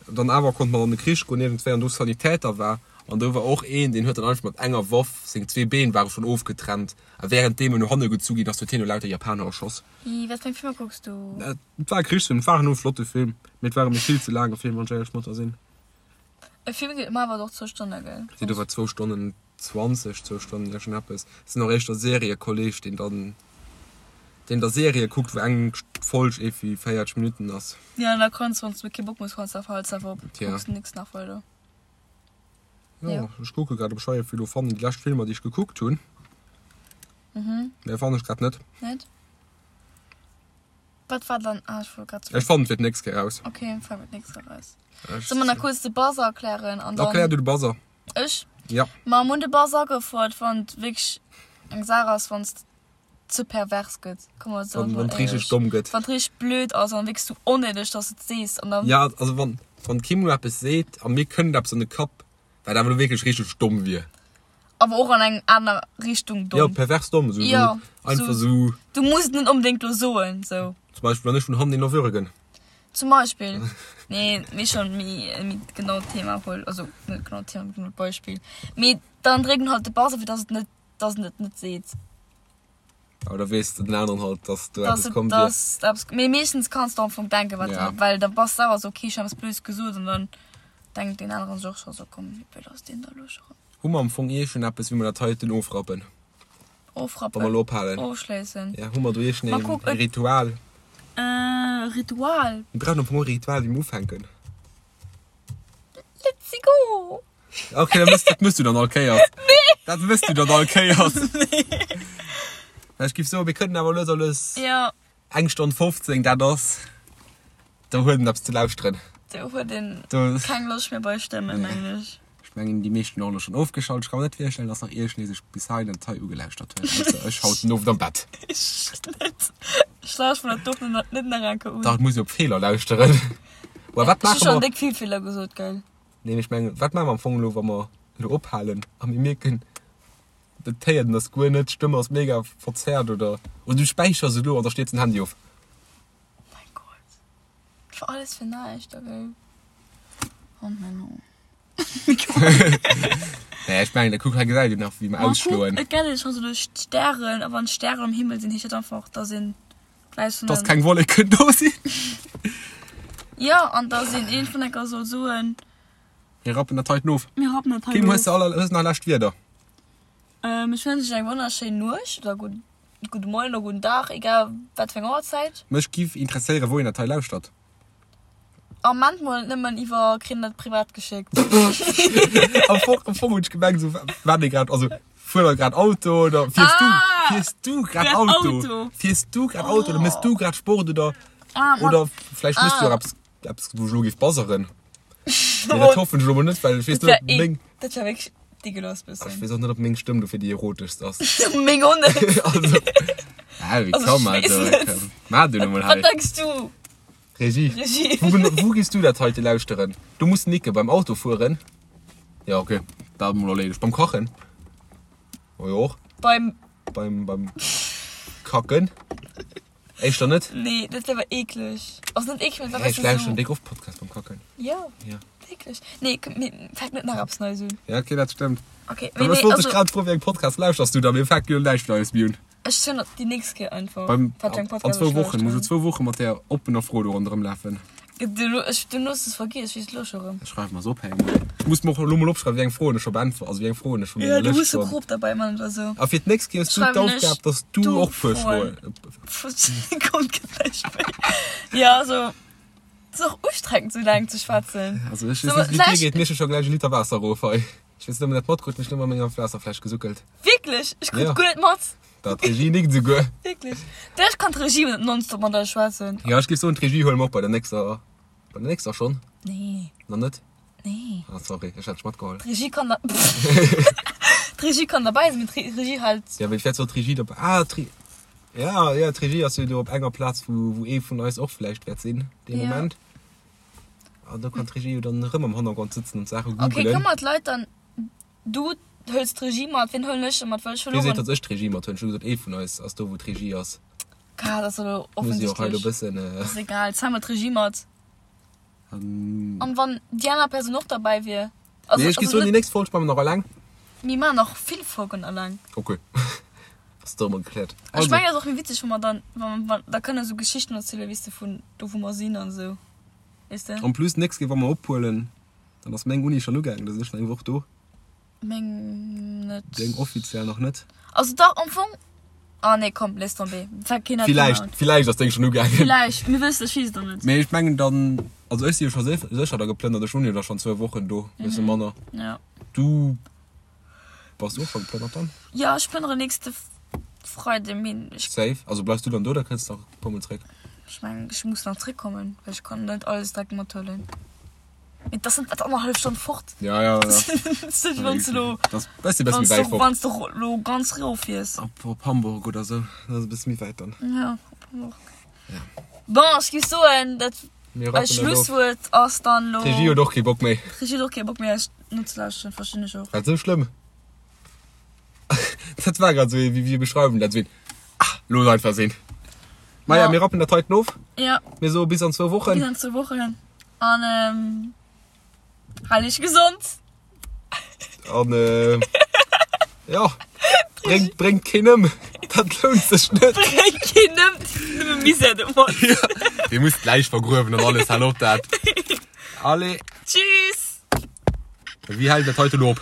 dann awer konnt mat an de Krich goen iergendwéi an do Sanitäter war. An do war och een, deen huet dann einfach mat enger Waff, seng zwee Been ware schonn ofgetrennt, a wärenddeem en no hanne gezu ginn ass, huet hien no lauter Japaner erschoss. Ih, wat fir eng Filmer kucks du? Et war e Krichsfilm, et war en flotte Film, mee et war e mir vill ze laange Film, wann ech éierlech mat der sinn. E Film geet ëmmer awer och zwou Stonne, gell? Déi do war zwou Stonnen 20, zwou Stonnen iergendeppes. Sinn och éischter Seriekolleg, deen dann, deen da Serië kuckt, wou eng Folg iergendwéi 40 Minutten ass. Ja, an da kanns, wann s du kee Bock méi hues, kanns du einfach halt selwer op, Tja. kucks du nix nach weider. Jo, Ja. ech kucke grad, ob ech hei iergendwéi elo fannen, déi lescht Filmer, déi ech gekuckt hunn. Mhm. Mä fannen ech grad net. Net? Wat war dann, ah, ech wollt grad Ech fannen et fir d'nächst Kéier raus. Okay, fannen et d'nächst Kéier raus. Ech. Solle mer nach kuerz de Buzzer erklären an dann. Erklär du de Buzzer. Ech? Ja. Ma mir hunn de Buzzer agefouert, wann et wierklech eng Saach ass, wann et ze pervers gëtt, komm mer soen Wann, mol wann et richteg éierlech. domm gëtt. Wann et richteg blöd ass an wierklech sou onnéideg, dass de et sees an dann. Ja, also wann, wann d'Kim elo eppes seet a mir kënnt eppes an de Kapp, wat awer elo wierklech richteg domm wier. Awer och an eng aner Richtung Ja, domm. pervers domm, sou, Ja, sou einfach sou. sou. Du muss et net onbedéngt elo soen, sou. Zum Beispill, wann ech vun hannen een erwürgen. Zum Beispill. Nee, mee schon méi, méi genau Thema wuel. Also net genau Thema, mee genau Beispill. Mee dann dréckt en halt de Buzzer, fir dass et net, dass en et net seet. Awer da weess den aneren halt, dass do Dass eppes et, komm wier. dass eppes, mee meeschtens kanns de am Fong denken, wat, Ja. well da bass de selwer sou, okay, ech hunn eppes Blödes gesot an dann denkt deen aneren sech och scho sou, komm, wéi blöd ass deen da elo scho rëm. Hu mer am Fong iergend eppes, wéi mer dat heiten ofrappen? Wa Ofrappen. mer elo ophalen. Ofschléissen. Ja, hu mer do iergend Ma een kuck, et. Ritual? Äh, Ritual. Mir brauchen am Fong och e Ritual, wéi mer ufänken. Let's go! Okay, dat mëss, dat mëss du dann all Kéiers. Nee! Dat mëss du dann all Kéiers. Nee. Ech giff soen, mir kënnen awer lues a lues. Ja. Eng Stonn 15, dat ass, do huet en eppes ze lauschteren. Do huet een Do. keng Loscht méi bei Stëmmen, mengen ech. Ech mengen, déi meeschten hunn och elo schonn ofgeschalt. Ech ka mer net virstellen, dass nach iergendee sech bis hei den Detail ugelauschtert huet, ausser ech haut den Owend am Bett. Ech net. Ech lauschteren mer dat och net nach eng Kéier un. Dach, et muss ee op Feeler lauschteren. Well wat Ech hu maache schonn mer? déck vill Feeler gesot, gell? Nee, mee ech mengen, wat maache mer am Fong elo, wa mer elo ophalen a mir mierken, dat héiert een ass guer net, d'Stëmm ass mega verzerrt oder, oder du späichers elo an da stierzt den Handy of. Oh mein Gott. Dat war alles fir näischt, okay. Oh Menno. Nee, ech mengen, kuck, hei gesäit een nach, wéi mer Ma kuck, ausschloen. et gett scho sou duerch d'Stären, a wann d'Stären am Himmel sinn, heescht dat einfach, dass een gläich vun Dass den. keng Wolleken do sinn. Jo, an dass een een vun enker soll soen. Mir rappen dat heiten of. Mir rappen dat heiten Kim, hues of. de aller, hues nach lescht Wierder? Ähm, ech wënsch iech eng wonnerschéin Nuecht oder gutt, gudde Moien oder gudden Dag, egal wat fir eng Auerzäit. Mech giff interesséieren, wou een dat hei lauschtert. Ament mol net nëmmen iwwer kritt dat privat geschéckt. Am Fong, am Fong hunn ech gemengt, esou wat ee grad, also fuer der grad Auto oder fiers du, Ah! fiers du grad Grad Auto, Auto. fiers du grad Auto oder mëss du grad Sport oder Ah, ma, oder vläicht mëss du ah. och eppes, eppes wou ech elo géif buzzeren. Mee dat hoffen ech elo mol net, well ech weess Dat net, wär ob eh, meng, dat wär wierklech dégueulasse ech bëssen. weess och net, ob meng Stëmm dofir déi eroteschst ass. Meng och net. Also, ah, wéi Also komm, ech weess also, net. maach du elo mol Wat hei. denks du? Regie. Regie. Wou, gen- wou gehst du dat heite lauschteren? Du muss nicke beim Autofueren. Ja, okay. Dat mol erleedegt. Beim Kachen. Oh jo och. Beim. Beim, beim Kacken. Éischter net? Nee, dat wär awer eekleg. Also net eekleg, mee dat Hä, wär ech bëssen lauschteren sou. déck oft Podcast beim Kacken. Jo. Ja. Wierklech? Nee, komm, mir fänken net nach eppes Neies un. Ja, okay, dat stëmmt. Okay, Mee mee nee, ech wollt dech also. grad froen, wéi eng Podcast lauschters du da? Mir fänken jo näischt Neies méi un. Ech soen der déi nächst Kéier einfach, Beim, wat fir eng an Podcast zwou ech Wochen. Muss elo lauschteren. zwou Woche mat där oppener Fro do ronderëm lafen. Du, ech, du hues es vergiess, ech weess et elo scho rëm. Ech schreiwe mer se op, hei. Ech muss mer och elo mol opschreiwen, wéi eng Froen ech scho beäntwert, also wéi eng Froen ech vu Ja, menger du Lëscht muss e schonn. Crop derbäi man oder sou. A fir d'nächst Kéier hues du Schreiwen ech d'Aufgab, dass du du och puer Froen. Froen. Kommt, gëtt näischt méi. Ja, also, et ass och ustrengend, sou laang ze schwätzen. Also ech So, weess net, wéi et dir vläicht. geet, mir hu scho gläich e Liter Waasser erof hei. Ech weess net, ob een dat matkritt, mee ech hunn ëmmer menger Waasserfläsch gesuckelt. Wierklech? Ech krut Ja. guer net mat. Dat d'Regie nickt esouguer. Wierklech? Vläicht kann d'Regie net nonstop mat eis schwätzen. Ja, ech géif soen, d'Regie huele mer och bei der nächster, bei der nächster schonn. Nee. Nach net? Nee. Ah, sorry, ech hat dech matgeholl. D'Regie kann da D'Regie kann derbäi sinn, mee d'Regie halt. Ja, mee vläicht soll d'Regie dobäi. Ah, d'Re ja, ja, d'Regie ass jo do op enger Plaz, wou, wou ee vun eis och vläicht wäert sinn, dee Ja. Moment. An do kann d'Regie jo dann erëm am Hannergrond sëtzen an d'Saache Okay, googelen. kënne mer d'Leit dann Du hëls d'Regie mat, wien huelen ech da mat? Well ech Wie seet, verlueren. datt ech d'Regie mat huelen? Ech hu gesot, ee vun eis ass do, wou d'Regie ass. Ka, dat ass elo Muss jo och hei elo offensichtlech. bëssen. Äh, Ass egal, zéi mer d'Regie mat. an An wann déi aner Persoun och derbäi wier? Also, Nee, ech gi also soen, déi net, nächst Folg maache mer nach eleng. mir maachen nach vill Folgen eleng. Okay. Ass do emol gekläert. Ech Also, mengen, et ass och méi witzeg, wa mer dann, wa, wa, da kënne sou Geschichten erzielen, weess de, vun do, wou mer sinn an esou, weess de? en plus, d'nächst Kéier, wa mer ophuelen, dann ass meng Uni schonn ugaangen, da sinn ech nach eng Woch do. Meng net. Deng offiziell nach net? Also dach, am Fong. Ah nee, komm, laisse tomber. Fänkt keen Villäicht, villäicht ass deng schonn ugaangen. Villäicht, mir wëssen, ech weess et nach net. Mee ech mengen dann, also ech si jo scho sécher da geplënnert, ech hunn jo da schonn zwou Wochen do, bësse manner. Ja. Du bass och scho geplënnert dann? Ja, ech plënnere nächste Freide, mee ech. Safe. Also bleifs du dann do oder kënns de nach e puer mol zréck? Ech mengen, ech muss nach zréckkommen, well ech kann net alles direkt mathuelen. Mee das sind wat annerhallef Stonn fort. Ja, ja, ja. Wann du lo, Das bësse bësse méi wäit fort. Wann du lo ganz rof fiers. Op, op Hamburg oder sou. Dat ass e bësse méi wäit dann. Ja, op Hamburg. Ja. Bon, ech géif soen, dat Mir eist rappen dat of. Schlusswuert ass dann lo. D'Regie huet och kee Bock méi. D'Regie huet och kee Bock méi eis nozelauschteren, verstinn ech och. War dat sou schlëmm? Dat war grad sou ee, wéi, wéi beschreiwen dat? Sou een, ah, looss einfach sinn. Maja, mir rappen dat heiten of. Ja. Mir soe bis an zwou Wochen. Bis an zwou Wochen. An ähm, hal iech gesond. An äh, ja, bréngt, bréngt keen ëm. Dat lount sech net. Bréngt keen ëm, nëmme Misär domat. Ja, Dir musst d'Läich vergruewen an alles, hal op dat. Allez. Tschüss. Wéi hält dat heiten op?